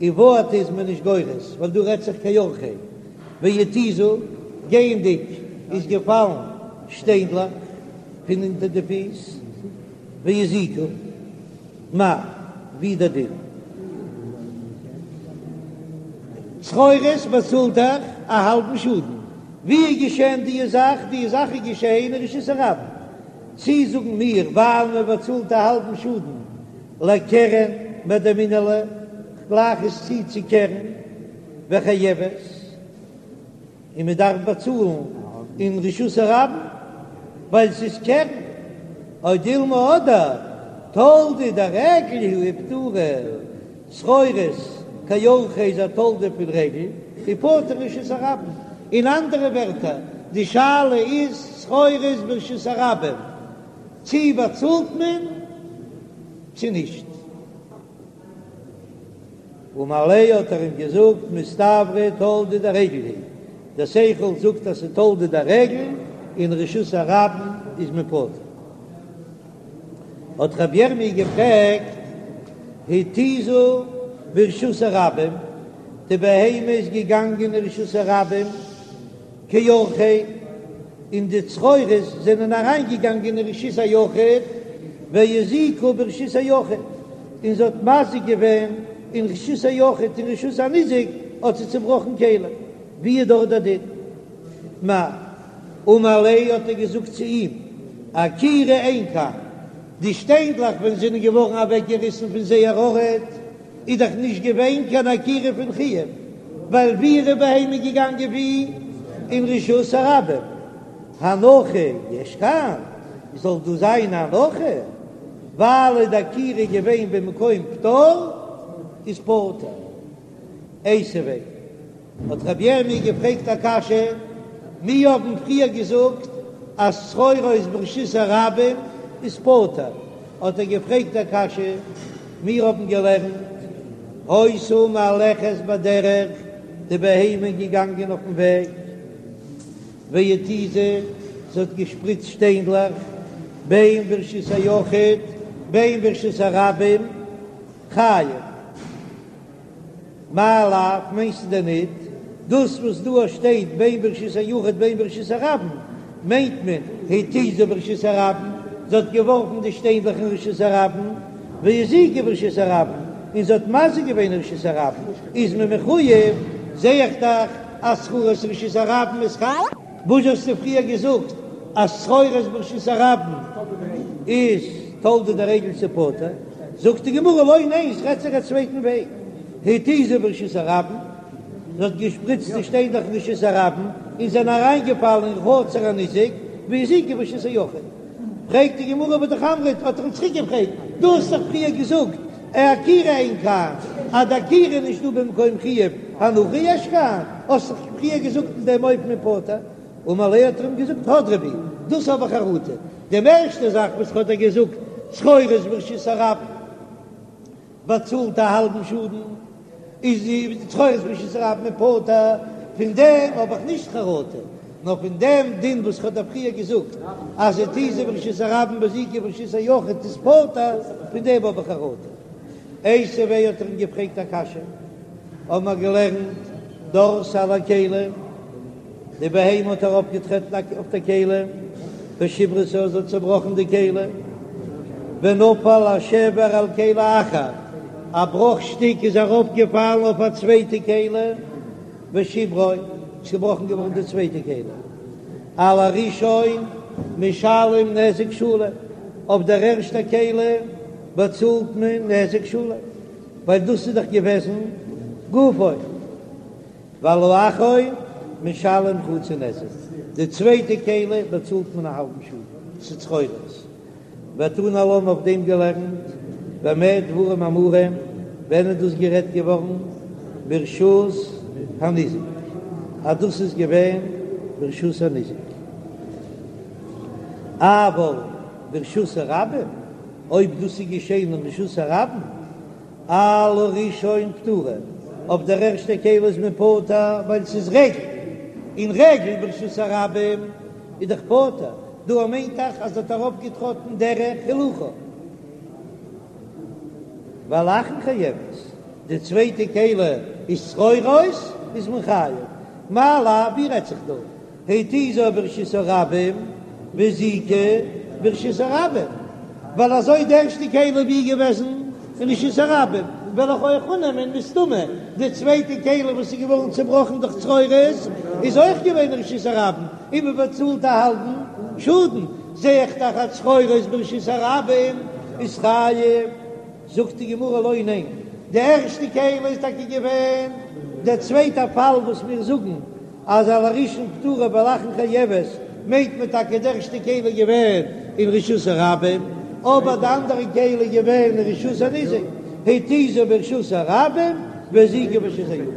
ובעטה איז מען נישט גורס, ווייל דא רעדט זיך כאורחיה, והתיזה, גייענדיג איז געפאלן שטיינדלעך פון אונטער די פיס, והזיקה, מאי, ווי דער דין? צרורות באצאלט דאך א האלבן שאדן. ווי איז געשען די זאך? די זאך איז געשען אין רשות הרבים. צי זאגן מיר ווייל מען באצאלט א האלבן שאדן לקרן מדמינן לה, כ'גלייך עס צו צו קרן וחייבת. און מען דארף באצאלן אין רשות הרבים ווייל ס'איז קרן, או דילמא אדער תולדה דרגל היא ופטורה, צרורות כאורחיה איז א תולדה פון רגל ופטור רשות הרבים, אין אנדערע ווערטער די שאלה איז צרורות ברשות הרבים צי באצאלט מען צי נישט. אמר ליה האט ער אים געזאגט מסתברא תולדה דרגל היא, דער שכל זאגט אז ס'איז תולדה דרגל אין רשות הרבים איז מען פטור. האט רבי ירמי' געפרעגט התיזה ברשות הרבים, די בהמה איז געגאנגען אין רשות הרבים, כאורחיה, און די צרורות זענען אריינגעגאנגען אין רשות היחיד, והזיקה ברשות היחיד, און זי האט מזיק געווען אין רשות היחיד, אין רשות הניזק האט זי צובראכן כלים, ווי איז דארט דער דין? מאי אמר ליה האט ער געזאגט צו אים, עקירה אין כאן, די שטיינדלעך ווען זענען געווארן אוועקגעריסן פון זייער ארט, איז דאך נישט געווען קיין עקירה פון חיוב, ווייל ווי איז די בהמה געגאנגען ווי אין רשות הרבים, הנחה יש כאן, זאל דא זיין א הנחה, ווייל איז די עקירה געווען במקום פטור, איז פטור. איתיביה. האט רבי ירמי' געפרעגט א קשיא, מיר האבן פריער געזאגט אז צרורות ברשות הרבים איז פטור, האט ער געפרעגט א קשיא, מיר האבן געלערנט היתה מהלכת בדרך, די בהמה איז געגאנגען אויפן וועג, והתיזה, זי האט געשפריצט שטיינדלעך, בין ברשות היחיד בין ברשות הרבים, חייב. מאי לאו, מיינסטו דען ניט דאס וואס דא שטייט בין ברשות היחיד בין ברשות הרבים, מיינט מען התיזה ברשות הרבים, זי האט געווארפן די שטיינדלעך אין רשות הרבים, והזיקה ברשות הרבים, און זי האט מזיק געווען אין רשות הרבים, איז מען מחוייב, זע איך דאך אז צרורות רשות הרבים איז חייב. וואס האסטו פריער געזאגט אז צרורות ברשות הרבים איז תולדה דרגל ס'איז פטור? זאגט די גמרא לא ניין ס'רעדט זיך א צווייטן וועג, התיזה ברשות הרבים. זי האט געשפריצט די שטיינדלעך אין רשות הרבים און זענען אריינגעפאלן אין חצר הניזק והזיקו ברשות היחיד. פרעגט די גמרא והא אמרת, האט ער אים צוריק געפרעגט, דו האסט דאך פריער געזאגט עקירה אין כאן, אז די עקירה איז נישט דא במקום חיוב, הנחה יש כאן, האסט דאך פריער געזאגט אין דעם אופן פטור. אמר ליה האט ער אים געזאגט הדרי בי, דאס האב איך חרטה, די ערשטע זאך וואס האט ער געזאגט צרורות ברשות הרבים באצאלט א האלבן שאדן, איז די צרורות ברשות הרבים פטור, פון דעם האב איך נישט חרטה, נאר פון דעם דין וואס כ'האב דיר פריער געזאגט אז התיזה ברשות הרבים והזיקה ברשות היחיד איז פטור, פון דעם האב איך חרטה. איתיביה האט ער אים געפרעגט א קשיא, האבן מיר געלערנט דרסה על הכלי, די בהמה האט ארויפגעטרעטן אויף די כלי, ושברתה זי האט צעבראכן די כלי, ונפל השבר על כלי אחר, א בראך שטיק איז ארויפגעפאלן אויף א צווייטע כלי, ושברו, איז געבראכן געווארן די צווייטע כלי, על הראשון משלם נזק שלם, אויף דער ערשטע כלי באצאלט מען נזק שלם, ווייל דאס איז דאך געוועזן גופו. ועל האחרון משלם חצי נזק, די צווייטע כלי באצאלט מען א האלבן שאדן, ס'איז צרורות. ותנא עלה אויף דעם געלערנט, במה דברים אמורים, ווען איז דאס גערעדט געווארן? ברשות הניזק, אז דאס איז געווען ברשות הניזק. אבל ברשות הרבים, אויב דאס איז געשען אין רשות הרבים, על הראשון פטורה, אויף דער ערשטער כלי איז מען פטור ווייל ס'איז רגל, און רגל ברשות הרבים איז דאך פטור, דא מיינט דאך אז האט ארויפגעטראטן דרך הילוכה. ועל האחרון חייבת, די צווייטע כלי איז צרורות איז מען חייב, מאי לאו ווי רעדט זיך דא? התיזה ברשות הרבים והזיקה ברשות הרבים, ווייל אזוי די ערשטע כלי ווי געוועזן אין רשות הרבים, וועל איך אויך אננעמען מסתמא די צווייטע כלי וואס איז געווארן צובראכן דורך צרורות איז אויך געווען אין רשות הרבים, און מען באצאלט א האלבן שאדן, זע איך דאך אז צרורות ברשות הרבים איז חייב. זאגט די גמרא לא ניין, די ערשטע כלי איז טאקע געווען דער צווייטע פאל וואס מיר זאגן אז על הראשון פטורה ועל האחרון חייבת, מיינט מען טאקע די ערשטע כלי איז געווען אין רשות הרבים, אבער די אנדערע כלי איז געווען אין רשות הניזק, התיזה ברשות הרבים והזיקה ברשות היחיד.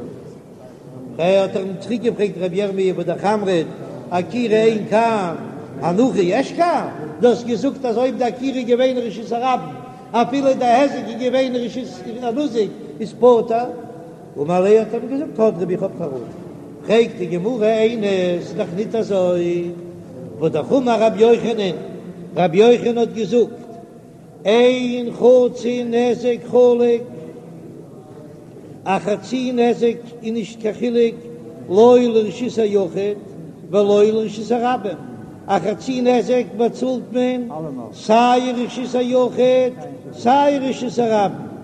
האט ער אים צוריק געפרעגט רבי ירמי' והא אמרת עקירה אין כאן הנחה יש כאן, דו האסט געזאגט אז אויב די עקירה איז געווען אין רשות הרבים אפילו די היזק איז געווען אין רשות הניזק איז פטור, אמר ליה האט ער אים געזאגט הדרי בי איך האב חרטה, פרעגט די גמרא איני ס'איז דאך ניט אזוי, והא אמר רבי יוחנן, רבי יוחנן האט געזאגט אין חצי נזק חלוק, א חצי נזק איז נישט קיין חילוק לא לרשות היחיד ולא לרשות הרבים, א חצי נזק באצאלט מען סיי אין רשות היחיד סיי אין רשות הרבים.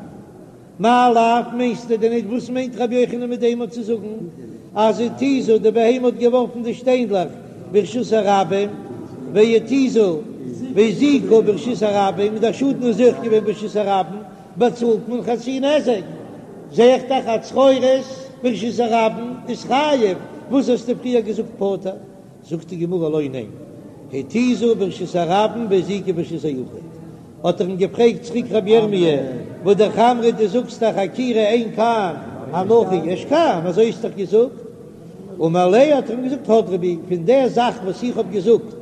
מאי לאו מיינסטו דען ניט וואס מיינט רבי יוחנן מיט דעם צו זאגן אז התיזה די בהמה האט געווארפן די שטיינדלעך ברשות הרבים והתיזה והזיקה ברשות הרבים און דער שאדן איז אויך געווען ברשות הרבים באצאלט מען חצי נזק זע איך דאך אז צרורות ברשות הרבים איז חייב וואס האסטו פריער געזאגט פטור זאגט די גמרא לא ניין התיזה ברשות הרבים והזיקה ברשות היחיד האט ער אים געפרעגט צוריק רבי ירמי' והא אמרת דו זאגסט דאך עקירה אין כאן הנחה יש כאן אזוי האסט דאך געזאגט אמר ליה האט ער אים געזאגט הדרי בי פון דער זאך וואס איך האב געזאגט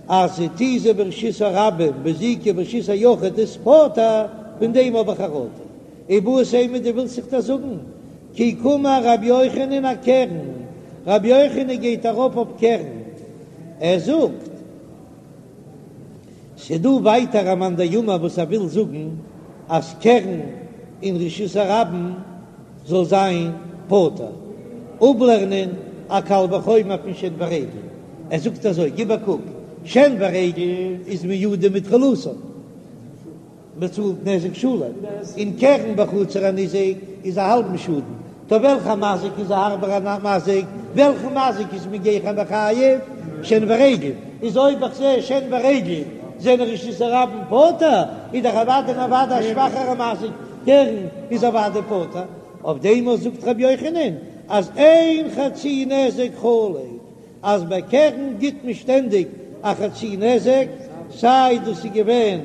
אז התיזה ברשות הרבים והזיקה ברשות היחיד איז פטור פון דעם האב איך חרטה איבעית אימא דו ווילסט זיך דאס זאגן כי קאמר רבי יוחנן אקרן רבי יוחנן גייט ארויף אויף קרן ער זאגט ס'דא ווייטער א מאן דאמר וואס ער וויל זאגן אז קרן אין רשות הרבים זאל זיין פטור, אפלערנען א קל וחומר פון שן ורגל, ער זאגט אזוי, גיב א קוק, שן ורגל איז מועדים מתחילתן. מען צאלט נזק שלם, און קרן בחצר הניזק איז א האלבן שאדן, טא וועלכע מזיק איז א הארבערע מזיק, וועלכן מזיק איז מען גיכער מחייב, שן ורגל, איז אויב איך זע שן ורגל זענען רשות הרבים פטור, איז דאך אוודאי און אוודאי א שוואכערע מזיק, קרן איז אוודאי פטור, אויף דעם אויך זאגט רבי יוחנן. אז אין חצי נזק חלוט, אז ביי קרן גיט מען שטענדיג א חצי נזק, סיי דאס איז געווען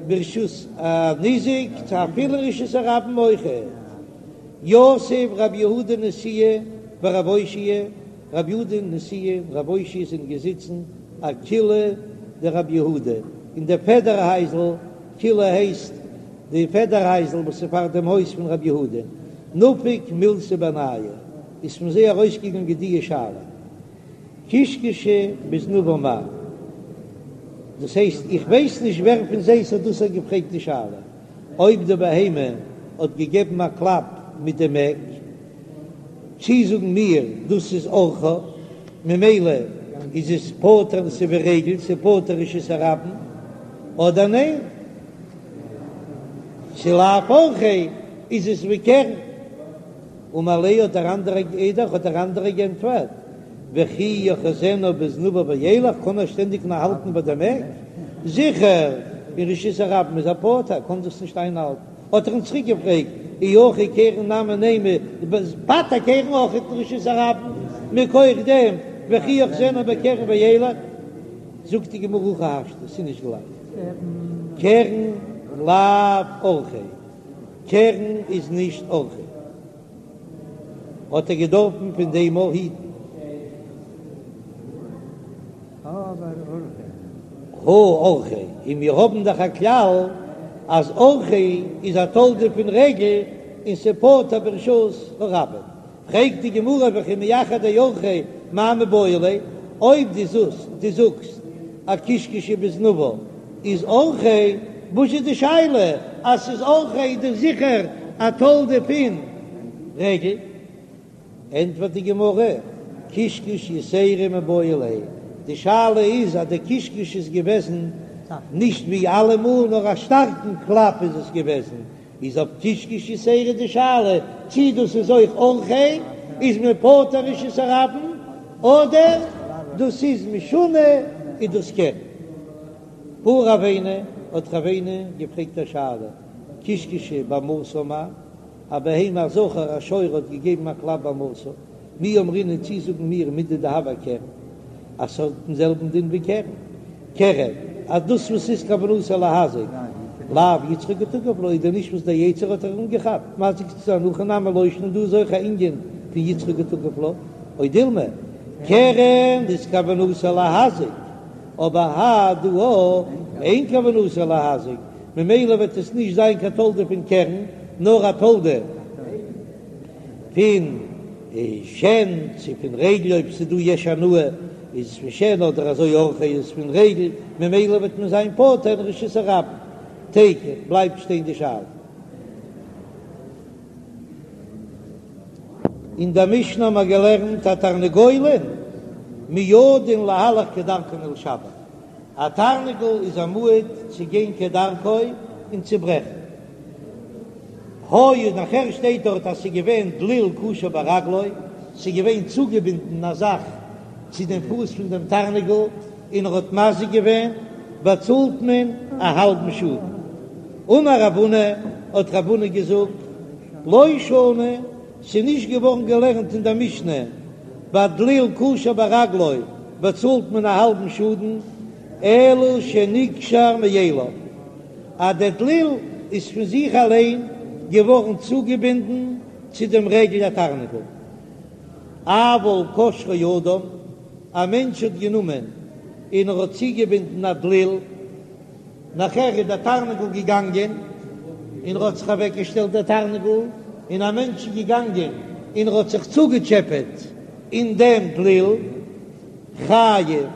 ברשות הניזק צו אפילו רשות הרבים אויכעט. יתיב רב יהודה נשיאה ורב אושעיא, רב יהודה נשיאה און רב אושעיא זענען געזיצן אקילעא דרב יהודה אין די פעדער הייזל, קילא הייסט די פעדער הייזל וואס איז פאר דעם הויז פון רב יהודה, נפק מילתא בינייהו, איז פון זיי ארויסגעגאנגען די שאלה, קישקשא בזנבה מהו, דאס הייסט איך ווייס נישט ווער פון זיי ס'האט דאס געפרעגט די שאלה, אויב די בהמה האט געגעבן א קלאפ מיט דעם עק, צי זאגן מיר דאס איז אורחה, ממילא איז עס פטור ס'איז ווי רגל, ס'איז פטור רשות הרבים, אדער ניין, ס'איז לאו אורחיה איז עס ווי קרן. אמר ליה האט דער אנדערער אידך האט דער אנדערער גענטפערט, וכי יאחזנה בזנבה וילך, קען ער שטענדיג נאר האלטן ביי דעם עק? זיכער אין רשות הרבים איז ער פטור, קען דאס נישט איינהאלטן, האט ער אים צוריק געפרעגט, אי הכי קרן נמי נימא, פטר קרן אויך אין רשות הרבים, מכח דעם וכי יאחזנה בקרן וילך, זאגט די גמרא הכי השתא, ס'איז נישט גלייך, קרן לאו אורחיה. קרן איז נישט אורחיה, האט ער געדארפן פון דעם אויך היטן. הא אורחיה, און מיר האבן דאך א כלל אז אורחיה איז א תולדה פון רגל און ס'פטור ברשות הרבים. פרעגט די גמרא וכי מאחר דאורחיה מאי מיבעי ליה, אויב דו זאגסט דו זאגסט אז קישקשא בזנבה איז אורחיה, וואס איז די שאלה אז ס'איז אורחיה איז דאך זיכער א תולדה פון רגל? ענטפערט די גמרא, קישקוש יתירא מיבעי ליה, די שאלה איז אז די קישקוש איז געוועזן נישט ווי אלעמאל נאר א שטארקן קלאפ איז עס געוועזן, איז אויף קישקוש יתירא די שאלה צי דאס איז אויך אורחיה, איז מען פטור רשות הרבים, אדער דאס איז משונה איז דאס קרן. בעי רבינא האט רבינא געפרעגט א שאלה, קישקשא בהמתה מהו, א בהמה א זכר א שור האט געגעבן א קלאפ בהמתה, מי אמרינן צי זאגן מיר מידי דהוה אקרן אז ס'האט דעם זעלבן דין ווי קרן קרן אז דאס וואס איז כוונתו להזיק לאו יצרו קא תקיף לה איז דען נישט וואס דער יצר האט איר אנגעכאפט מזיק צו זיין הכא נמי לא שנא דא איז אויך א ענין פון יצרו קא תקיף לה או דילמא קרן איז כוונתו להזיק אבער האי דא אין כוונתו להזיק ממילא וועט עס נישט זיין קיין תולדה פון קרן נאר א תולדה פון שן צו פון רגל אויב ס'איז דא יש הנאה איז עס פון שן אדער אזוי אורחיה איז פון רגל ממילא וועט מען זיין פטור אין רשות הרבים. תיקו, בלייבט שטיין די שאלה. אין דער משנה האבן מיר געלערנט התרנגולין מועדין להלך כדרכן ולשבר, א תרנגול איז א מועד צו גיין כדרכו און צו ברעכן. היה נאכער שטייט דארט אז ס'איז געווען דליל קשור ברגלו, ס'איז געווען צוגעבינדן א זאך צו דעם פוס פון דעם תרנגול און ער האט מזיק געווען, באצאלט מען א האלבן שאדן. אמר רב הונא, האט רב הונא געזאגט, לא שנו, ס'איז נישט געווארן געלערנט אין דער משנה, ביי דליל קשור ברגלו באצאלט מען א האלבן שאדן, אלא שנקשר מאליו. אז דער דליל איז פון זיך אליין געווארן צוגעבינדן צו דעם רגל התרנגול. אבל קשרו אדם, א מענטש האט גענומען און ער האט צוגעבינדן א דליל, נאכער איז דער תרנגול געגאנגען און ער האט זיך אוועקגעשטעלט דער תרנגול, און א מענטש איז געגאנגען און ער האט זיך צוגעטשעפעט אין דעם דליל, חייב.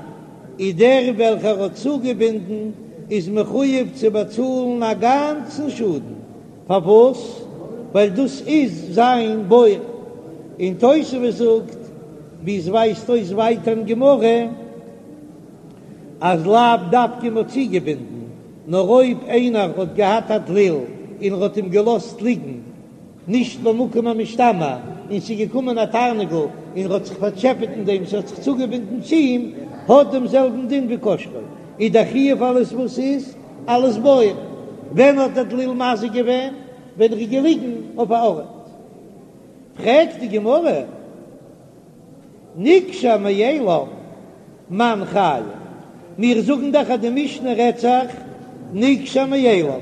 איז דער וועלכער האט צוגעבינדן איז מחויב צו באצאלן א גאנצן שאדן, פארוואס? ווייל דאס איז זיין בור, און תוספות זאגט, ווי עס ווייזט אויס ווייטער אין גמרא, אז לאו דווקא מ'האט צוגעבינדן, נאר אויב איינער האט געהאט א דליל און ער האט אים געלאזט ליגן, נישט במקום המשתמר, און ס'איז געקומען א תרנגול און האט זיך פארטשעפעט אין דעם, ס'האט זיך צוגעבינדן צו אים, האט דעם זעלבן דין ווי קשרו, איז דער חיוב אלעס וואס איז, אלס בור. ווען האט דער דליל מזיק געווען? ווען ער איז געליגן אויף א ארט. פרעגט די גמרא, נקשר מאליו מאן חייב, מיר זאגן דאך אז די משנה רעדט זיך נקשר מאליו,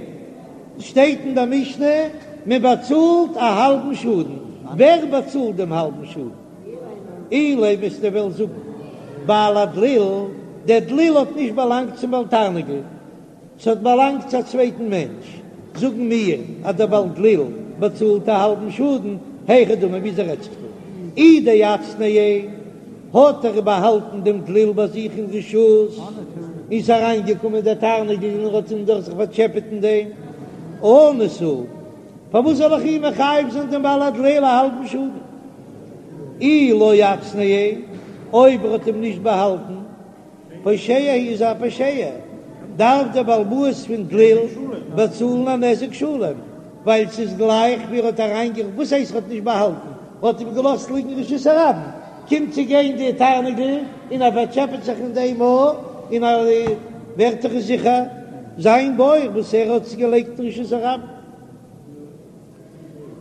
שטייט אין די משנה מען באצאלט א האלבן שאדן, ווער באצאלט דעם האלבן שאדן? אילימא וועסטו וועלן זאגן בעל הדליל, דער דליל האט נישט באלאנגט צום בעל תרנגול, ס'האט באלאנגט צו א צווייטן מענטש, זאגן מיר אז דער בעל דליל באצאלט א האלבן שאדן, היכי דמי וויאזוי רעדט זיך דא? אי דאצנעיה האט ער באהאלטן דעם דליל ביי זיך אין רשות, איז אריינגעקומען דער תרנגול און ער האט אים דאך זיך פארטשעפעט אין דעם, אנוס הוא, פארוואס זאל איך אים מחייב זיין דעם בעל הדליל א האלבן שאדן? אי לא אצנעיה, אויב ער האט אים נישט באהאלטן, פושע איז א פושע, דארף דער בעל הבית פון דליל באצאלן א נזק שלם, ווייל ס'איז גלייך ווי ער האט אריינגע. וואס הייסט ער האט נישט באהאלטן? ער האט אים געלאזט ליגן אין רשות הרבים, קומט צו גיין די תרנגול און ער פארטשעפעט זיך אין דעם א און ער ווערט דאך זיכער זיין בור וואס ער האט עס געלייגט אין רשות הרבים.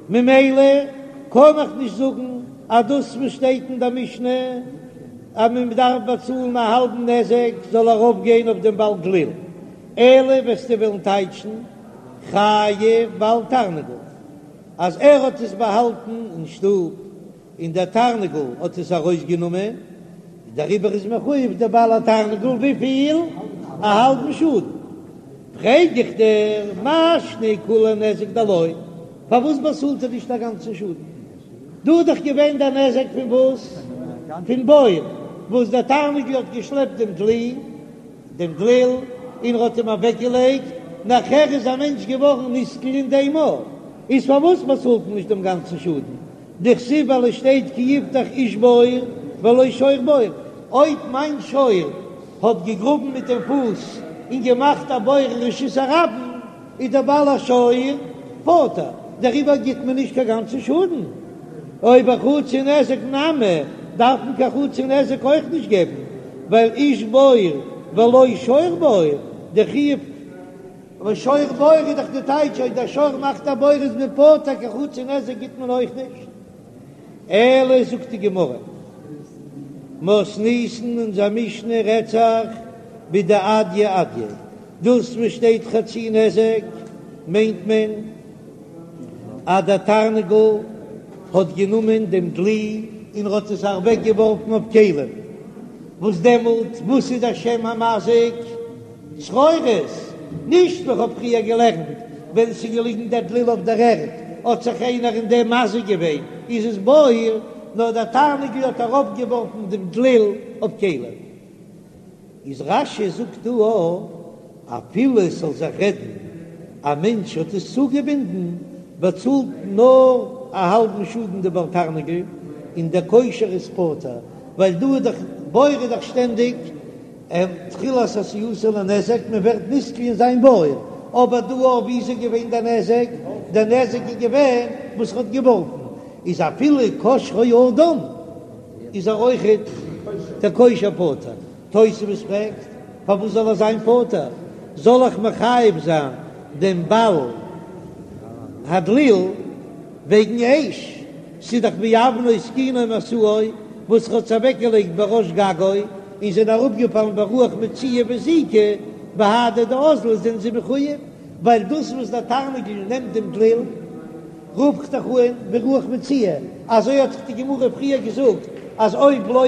ממילא קען איך נישט זאגן אז דאס וואס שטייט אין דער משנה אז מען דארף באצאלן א האלבן נזק זאל ארויפגיין אויף דעם בעל דליל, אלא וועסטו וועלן טייטשן חייב בעל תרנגול אז ער האט עס באהאלטן אין שטוב און דער תרנגול האט עס ארויסגענומען, דעריבער איז מחויב דער בעל התרנגול וויפיל? א האלבן שאדן. פרעג איך דיר, מאי שנא כוליה נזק דלא, פארוואס באצאלט ער נישט א גאנצן שאדן? דא איז דאך געווען דער נזק פון וואס? פון בור, וואס דער תרנגול האט געשלעפט דעם דלי, דעם דליל, און ער האט אים אוועקגעלייגט, נאכער איז א מענטש געווארן נתקל אין דעם בור, איז פארוואס באצאלט מען נישט דעם גאנצן שאדן? דכתיב ווייל עס שטייט כי יפתח איש בור ולא שור בור, אויב מיין שור האט געגראבן מיט דעם פוס און געמאכט א בור אין רשות הרבים איז דער בעל השור פטור, דעריבער גיט מען נישט קיין גאנצן שאדן. או בחצי נזק נמי דארף מען קיין חצי נזק אויך נישט געבן, ווייל איש בור ולא שור בור, די חיוב. אבער שור בור איז דאך די טייטש אויב דער שור מאכט א בור איז מען פטור קיין חצי נזק גיט מען אויך נישט. אלא זאגט די גמרא מתניתין אונזער משנה רעדט זיך בדאדייה אדיה דאס וואס שטייט חצי נזק מיינט מען אז דער תרנגול האט גענומען דעם דלי און האט עס אוועק געווארפן אויף כלים וואס דעמאלט וואס איז דער שם המזיק? צרורות, נישט ווי כ'האב פריער געלערנט, ווען ס'איז געליגן דער דליל אויף דער ערד, האט זיך איינער אין דעם מזיק געווען, איז עס בור, נאר דער תרנגול האט אראפגעווארפן דעם דליל אויף כלים. איז רש"י זאגט דא א, אפילו עס זאל זיך רעדן א מענטש האט עס צוגעבינדן, באצאלט נאר א האלבן שאדן די בעל תרנגול, און דער קושר איז פטור, ווייל דא איז דאך בור איז דאך שטענדיג תחילת עשייתו לנזק, מען ווערט נתקל אין זיין בור, אבער דא אויף ווי איז געווען דער נזק? דער נזק איז געווען וואס ער האט געווארפן, איז אפילו קשרו אדם איז ער אויכעט דער קושר פטור. תוספות פרעגט, פארוואס זאל ער זיין פטור? זאל איך מחייב זיין דעם בעל הדליל וועגן אש? ס'איז דאך מאבנו התקינו משאו וואס ער האט עס אוועקגעלייגט בראש גגו און זענען אראפגעפאלן ברוח מצויה והזיקו בהדי דאזלא זענען זיי מחויב ווייל דאס וואס דער תרנגול נעמט דעם דליל רוף איך דאך אן ברוח מצויה, אזוי האט דאך די גמרא פריער געזאגט אז אויב לא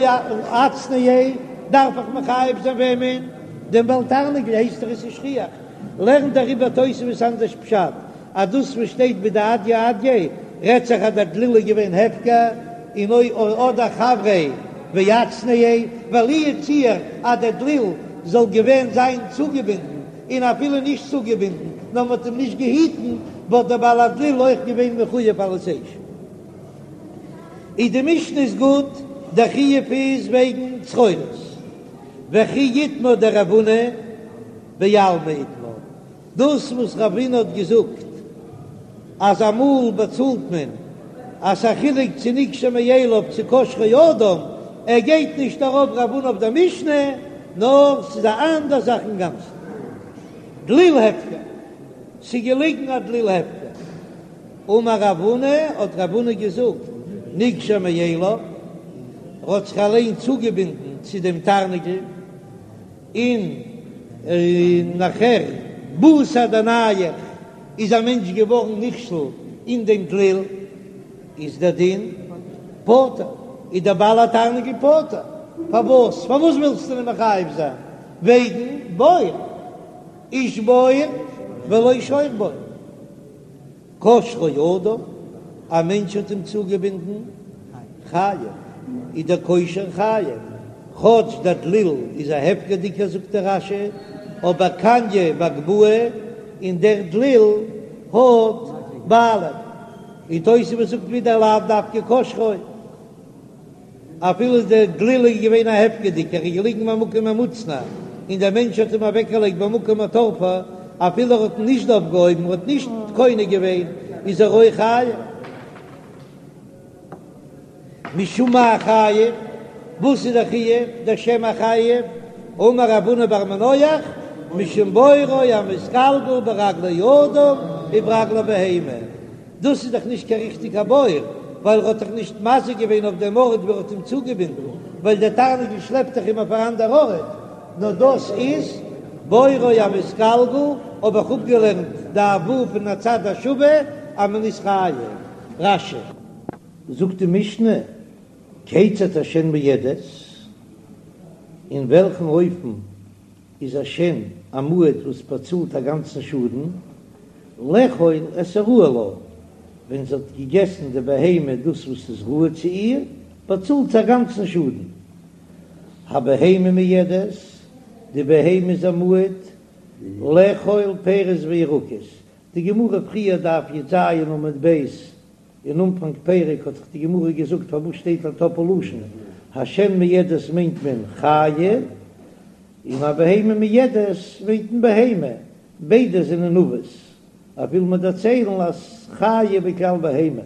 אצנעיה דארף איך מחייב זיין וועמען? דעם בעל תרנגול הייסט ער עס איז שכיח, לערנט דעריבער תוספות אנדערש פשט אז דאס וואס שטייט בדאדייה אדיה רעדט זיך אז דער דליל איז געווען הפקר און אוי אדער חבריה ואצנעיה, ווייל לו יצוייר אז דער דליל זאל געווען זיין צוגעבינדן און אפילו נישט צוגעבינדן נאר מען האט אים נישט געהיטן וואלט דער בעל הדליל אויך געווען מחויב אלס אש. איז די משנה איז גוט, דער חיוב איז וועגן צרורות וכי איתמר דרב הונא בעלמא איתמר. דאס וואס רב הונא האט געזאגט אז אמאל באצאלט מען אז ס'א חילוק צו נקשר מאליו צו קשרו אדם, ער גייט נישט ארויף רב הונא אויף דער משנה, נאר ס'איז א אנדער זאך אינגאנצן. דליל הפקר, ס'איז געליגן א דליל הפקר. אמר רב הונא, האט רב הונא געזאגט, נקשר מאליו, ער האט זיך אליין צוגעבינדן צו דעם תרנגול, און נאכער בתר דנייח איז א מענטש געווארן נכשל אין דעם דליל, איז דער דין פטור, איז דער בעל התרנגול פטור, פארוואס? פארוואס ווילסטו אים מחייב זיין? וועגן בור, איש בור ולא שור בור. קשרו אדם, א מענטש האט אים צוגעבינדן, חייב, איז דער קושר חייב, כאטש דער דליל איז א הפקר'דיגער זאגט דער רש"י, אבער קניא בהגבהה, און דער דליל האט בעלים, און תוספות זאגט ווידער לאו דווקא קשרו. אפילו דער דליל איז געווען א הפקר'דיגער, ער איז געליגן במקום המוצנע, און דער מענטש האט אים אוועקגעלייגט במקום התורפה, אפילו ער האט אים נישט אויפגעהויבן, ער האט נישט קונה געווען, איז ער אויך חייב. משום מאי חייב? וואס איז דער חיוב, דער שם החייב? אמר רב הונא בר מנוח, משום בורו המתגלגל ברגלי אדם וברגלי בהמה. דאס איז דאך נישט קיין ריכטיגע בור, ווייל ער האט דאך נישט מזיק געווען אויף דעם ארט וואו ער האט אים צוגעבינדן, ווייל דער תרנגול שלעפט דאך אים אויף אן אנדער ארט, נאר דאס איז בורו המתגלגל, האב איך אפגעלערנט דף ו' פון הצד השווה אז מען איז חייב. רש"י. זאגט די משנה, כיצד השן מועדת, אין וועלכן אופן איז א שן א מועד וואס באצאלט א גאנצן שאדן, לאכול את הראוי לה, ווען זי האט געגעסן די בהמה דאס וואס איז ראוי צו איר, באצאלט זי א גאנצן שאדן. הבהמה מועדת, די בהמה איז א מועד, לאכול פירות וירקות, די גמרא פריער דף י"ז עמוד ב', אין אנפאנג פרק האט דאך די גמרא געזאגט פארוואס שטייט א טאפל לשון השן מועדת מיינט מען חיה און הבהמה מועדת מיינט מען בהמה, ביידע זענען אבות, אויב וויל מען דערציילן אז חיה בכלל בהמה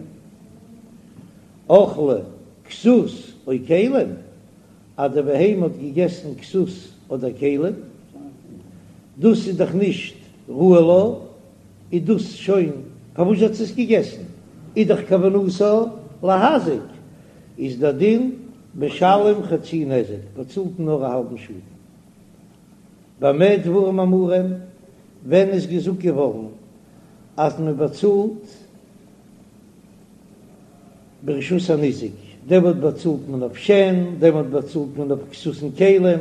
אכלה כסות או כלים, אז די בהמה האט געגעסן כסות אדער כלים, דאס איז דאך נישט ראוי לה. איז דאס שוין פארוואס האט זי עס געגעסן, איז דאך כוונתה להזיק, איז דער דין משלם חצי נזק, באצאלט נאר א האלבן שאדן. במה דברים אמורים, ווען איז געזאגט געווארן אז מען באצאלט ברשות הניזק, דעמאלט באצאלט מען אויף שן, דעמאלט באצאלט מען אויף כסות און כלים,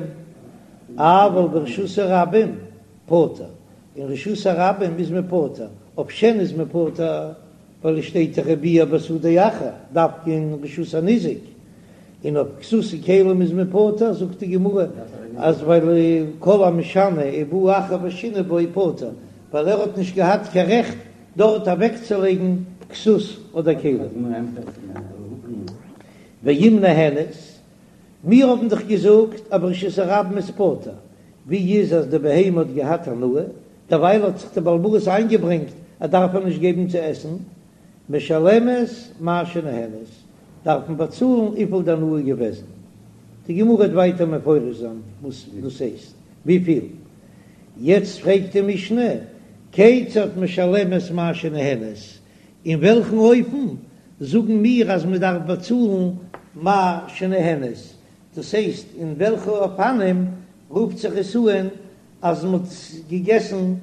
אבל ברשות הרבים פטור, אין רשות הרבים איז מען פטור, אויף שן איז מען פטור ווייל עס שטייט דאך וביער בשדה אחר, דווקא אין רשות הניזק, און אויף כסות און כלים איז מען פטור, זאגט די גמרא אז ווייל כל המשנה ובא אחר ושינה בו פטור, ווייל ער האט נישט געהאט קיין רעכט דארט אוועקצולייגן כסות אדער כלים. ואם נהנית, מיר האבן דאך געזאגט אז ברשות הרבים איז פטור, ווי איז אז די בהמה האט געהאט הנאה, דערווייל האט זיך די בעל הבית איינגעברענגט ער דארף איר נישט געבן צו עסן, משלמת מה שנהנית, דארף מען באצאלן וויפיל די הנאה איז געוועזן. די גמרא וועט ווייטער מפרש זיין וואס דאס הייסט וויפיל. יעצט פרעגט די משנה, כיצד משלמת מה שנהנית, אין וועלכן אופן זאגן מיר אז מען דארף באצאלן מה שנהנית, דאס הייסט אין וועלכע אופנים רופט זיך עס אן אז מען האט געגעסן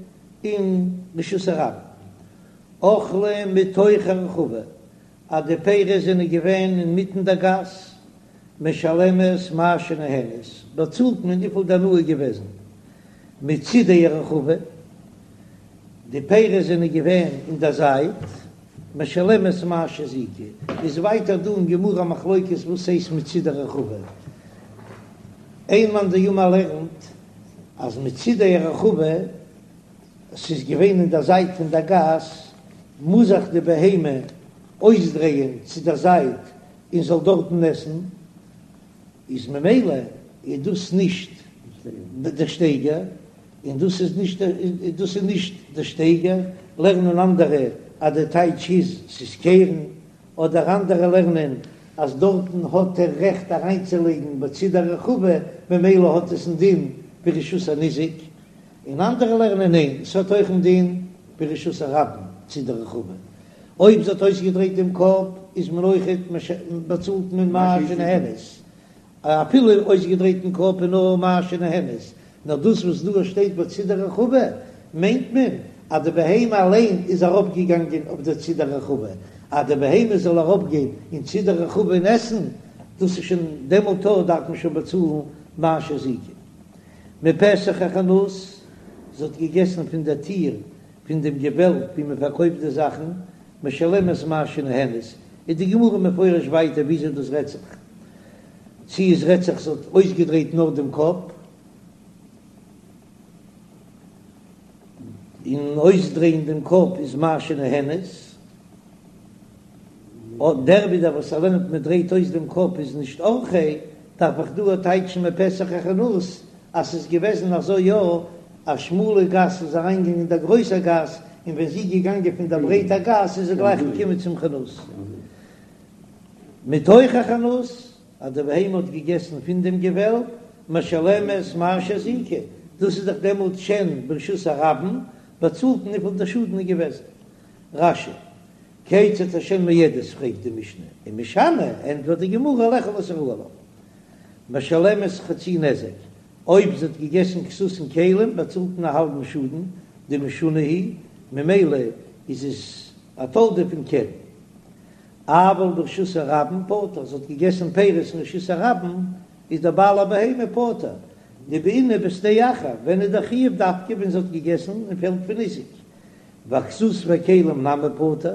אין רשות הרבים, אכלה מתוך הרחבה, אז די פירות זענען געווען אינמיטן דער גאס, משלמת מה שנהנית, באצאלט מען וויפיל די הנאה איז געוועזן, מצידי הרחבה, די פירות זענען געווען אין דער זייט, משלמת מה שהזיקה, איז ווייטער דא אין גמרא מחלוקת וואס הייסט מצידי הרחבה, איין מאן דאמר לערנט אז מצידי הרחבה, ס'איז געווען אין דער זייט פון דער גאס, מוז זיך די בהמה אויסדרייען צו דער זייט און זאל דארטן עסן, איז ממילא איז דאס נישט דער שטייגער, און דאס איז נישט דאס איז נישט דער שטייגער, לערנען אנדערע אז דער טייטש איז ס'איז קרן, אדער אנדערע לערנען אז דארטן האט ער רעכט אריינצולייגן בצידי הרחבה ממילא האט עס א דין ווי רשות הניזק, און אנדערע לערנען ניין ס'האט אויך א דין ווי רשות הרבים צידי הרחבה. אויב זי האט אויסגעדרייט דעם קאפ איז מען אויכעט באצאלט מען מה שנהנית, אפילו אויסגעדרייטן קאפ איז נאר מה שנהנית, נאר דאס וואס דא שטייט בצידי רחבה מיינט מען אז די בהמה אליין איז אראפגעגאנגען אויף די צידי רחבה, אז די בהמה זאל אראפגיין אין צידי רחבה און עסן, דאס איז שוין דעמאלט דארף מען שוין באצאלן מה שהזיקה. מפתח החנות, זי האט געגעסן פון דער טיר פון דעם געוועלב ווי מען פארקויפט די זאכן, משלמת מה שנהנית, איז די גמרא מפרש ווייטער וויאזוי דאס רעדט זיך, צי עס רעדט זיך זי האט אויסגעדרייט נאר דעם קאפ, און אויסדרייען דעם קאפ איז מה שנהנית, דער ווידער וואס ער לערנט מען דרייט אויס דעם קאפ איז נישט אורחיה, דארף איך דא טייטשן מפתח החנות אז ס'איז געוועזן אזוי יא, א שמאלע גאס איז אריינגעגאנגען אין דער גרויסער גאס, און ווען זי איז געגאנגען פון דער ברייטער גאס איז זי גלייך געקומען צום חנות. מתוך החנות, אז די בהמה האט געגעסן פון דעם געוועלב, משלמת מה שהזיקה, דאס איז דאך דעמאלט שן ברשות הרבים, באצאלט מען וויפיל דער שאדן איז געוועזן. רש"י, כיצד השן מועדת פרעגט די משנה, ומשני, ענטפערט די גמרא לאכול את הראוי לה. משלמת חצי נזק, אויב זי האט געגעסן כסות און כלים באצאלט מען א האלבן שאדן, דמשונה היא, ממילא איז עס א תולדה פון קרן. אבל ברשות הרבים פטור, זי האט געגעסן פירות אין רשות הרבים, איז דער בעל הבהמה פטור, דבעינן בשדה אחר, ווען איז דער חיוב דווקא ווען זי האט געגעסן אין פעלד פון ניזק, ואכסות וכלים נמי פטור,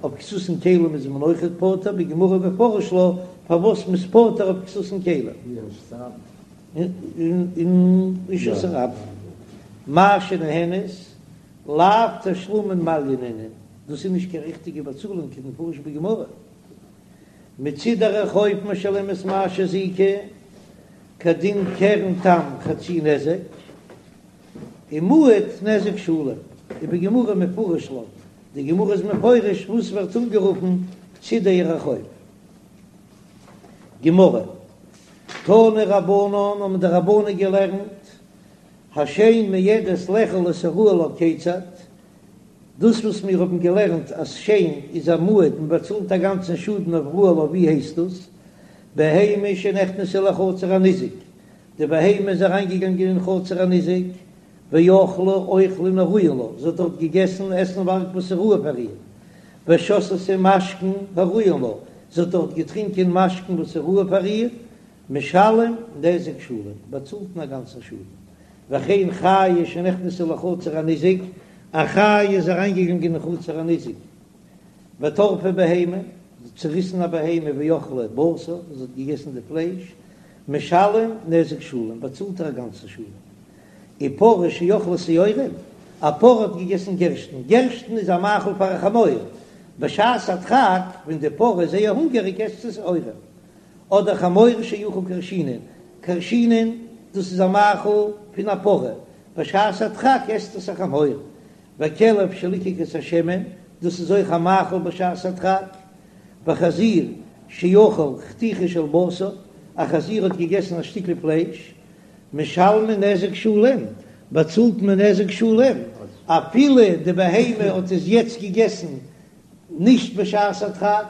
אויף כסות און כלים איז מען אויכעט פטור, בגמרא מפרש לה פארוואס מ'איז פטור אויף כסות און כלים. אין רשות הרבים. מה שנהנית, לאו תשלומין מעליא נינהו, דאס איז נישט קיין ריכטיגע באצאלונג כדמפרש בגמרא. מצידי רחוב משלמת מה שהזיקה, כדין קרן תם חצי נזק. ומועד נזק שלם, ובגמרא מפרש לה, די גמרא איז מפרש וואס ווערט אנגערופן צידי רחוב. גמרא, תנו רבנן האבן די רבנן געלערנט, השן מועדת לאכול את הראוי לה כיצד, דאס וואס מיר האבן געלערנט אז שן איז א מועד מען באצאלט א גאנצן שאדן אויף ראוי לה ווי הייסט דאס? בהמה שנכנסה לחצר הניזק, די בהמה איז אריינגעגאנגען אין חצר הניזק, ואכלה אוכלין הראויין לה, זי האט דארט געגעסן עסנווארג וואס איז ראוי פאר איר, ושתתה משקין הראויין לה, זי האט דארט געטרינקען משקין וואס איז ראוי פאר איר, משלם נזק שלם, באצאלט מען א גאנצן שאדן. וכן חיה שנכנסה לחצר הניזק, א חיה איז אריינגעגאנגען אין חצר הניזק, וטרפה בהמה, זי האט צוריסן א בהמה ואכלה בשר, זי האט געגעסן די פלייש, משלם נזק שלם, באצאלט ער א גאנצן שאדן. ופרה שאכלה שעורים, א פרה האט געגעסן גערשטן, גערשטן איז א מאכל פאר א חמור, בשעת הדחק ווען די פרה איז זייער הונגעריג עסט זי שעורים. אדער חמור שאכל כרשינין, כרשינין דאס איז א מאכל פון א פרה, בשעת הדחק עסט עס א חמור. וכלב שליקק את השמן, דאס איז אויך א מאכל בשעת הדחק. וחזיר שאכל חתיכה של בשר, א חזיר האט געגעסן א שטיקל פלייש, משלמין נזק שלם, באצאלט מען נזק שלם, אפילו די בהמה האט עס יעצט געגעסן נישט בשעת הדחק,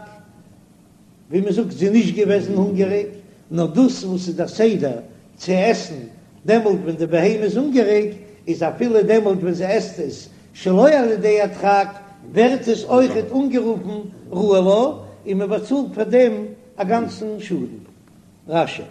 ווי מען זאגט זי איז נישט געוועזן הונגעריג, נאר דאס וואס איז דער סדר צו עסן דעמאלט ווען די בהמה איז הונגעריג, איז אפילו דעמאלט ווען זי עסט עס שלא על ידי הדחק, ווערט עס אויכעט אנגערופן ראוי לה, און מען באצאלט פאר דעם א גאנצן שאדן. רש"י.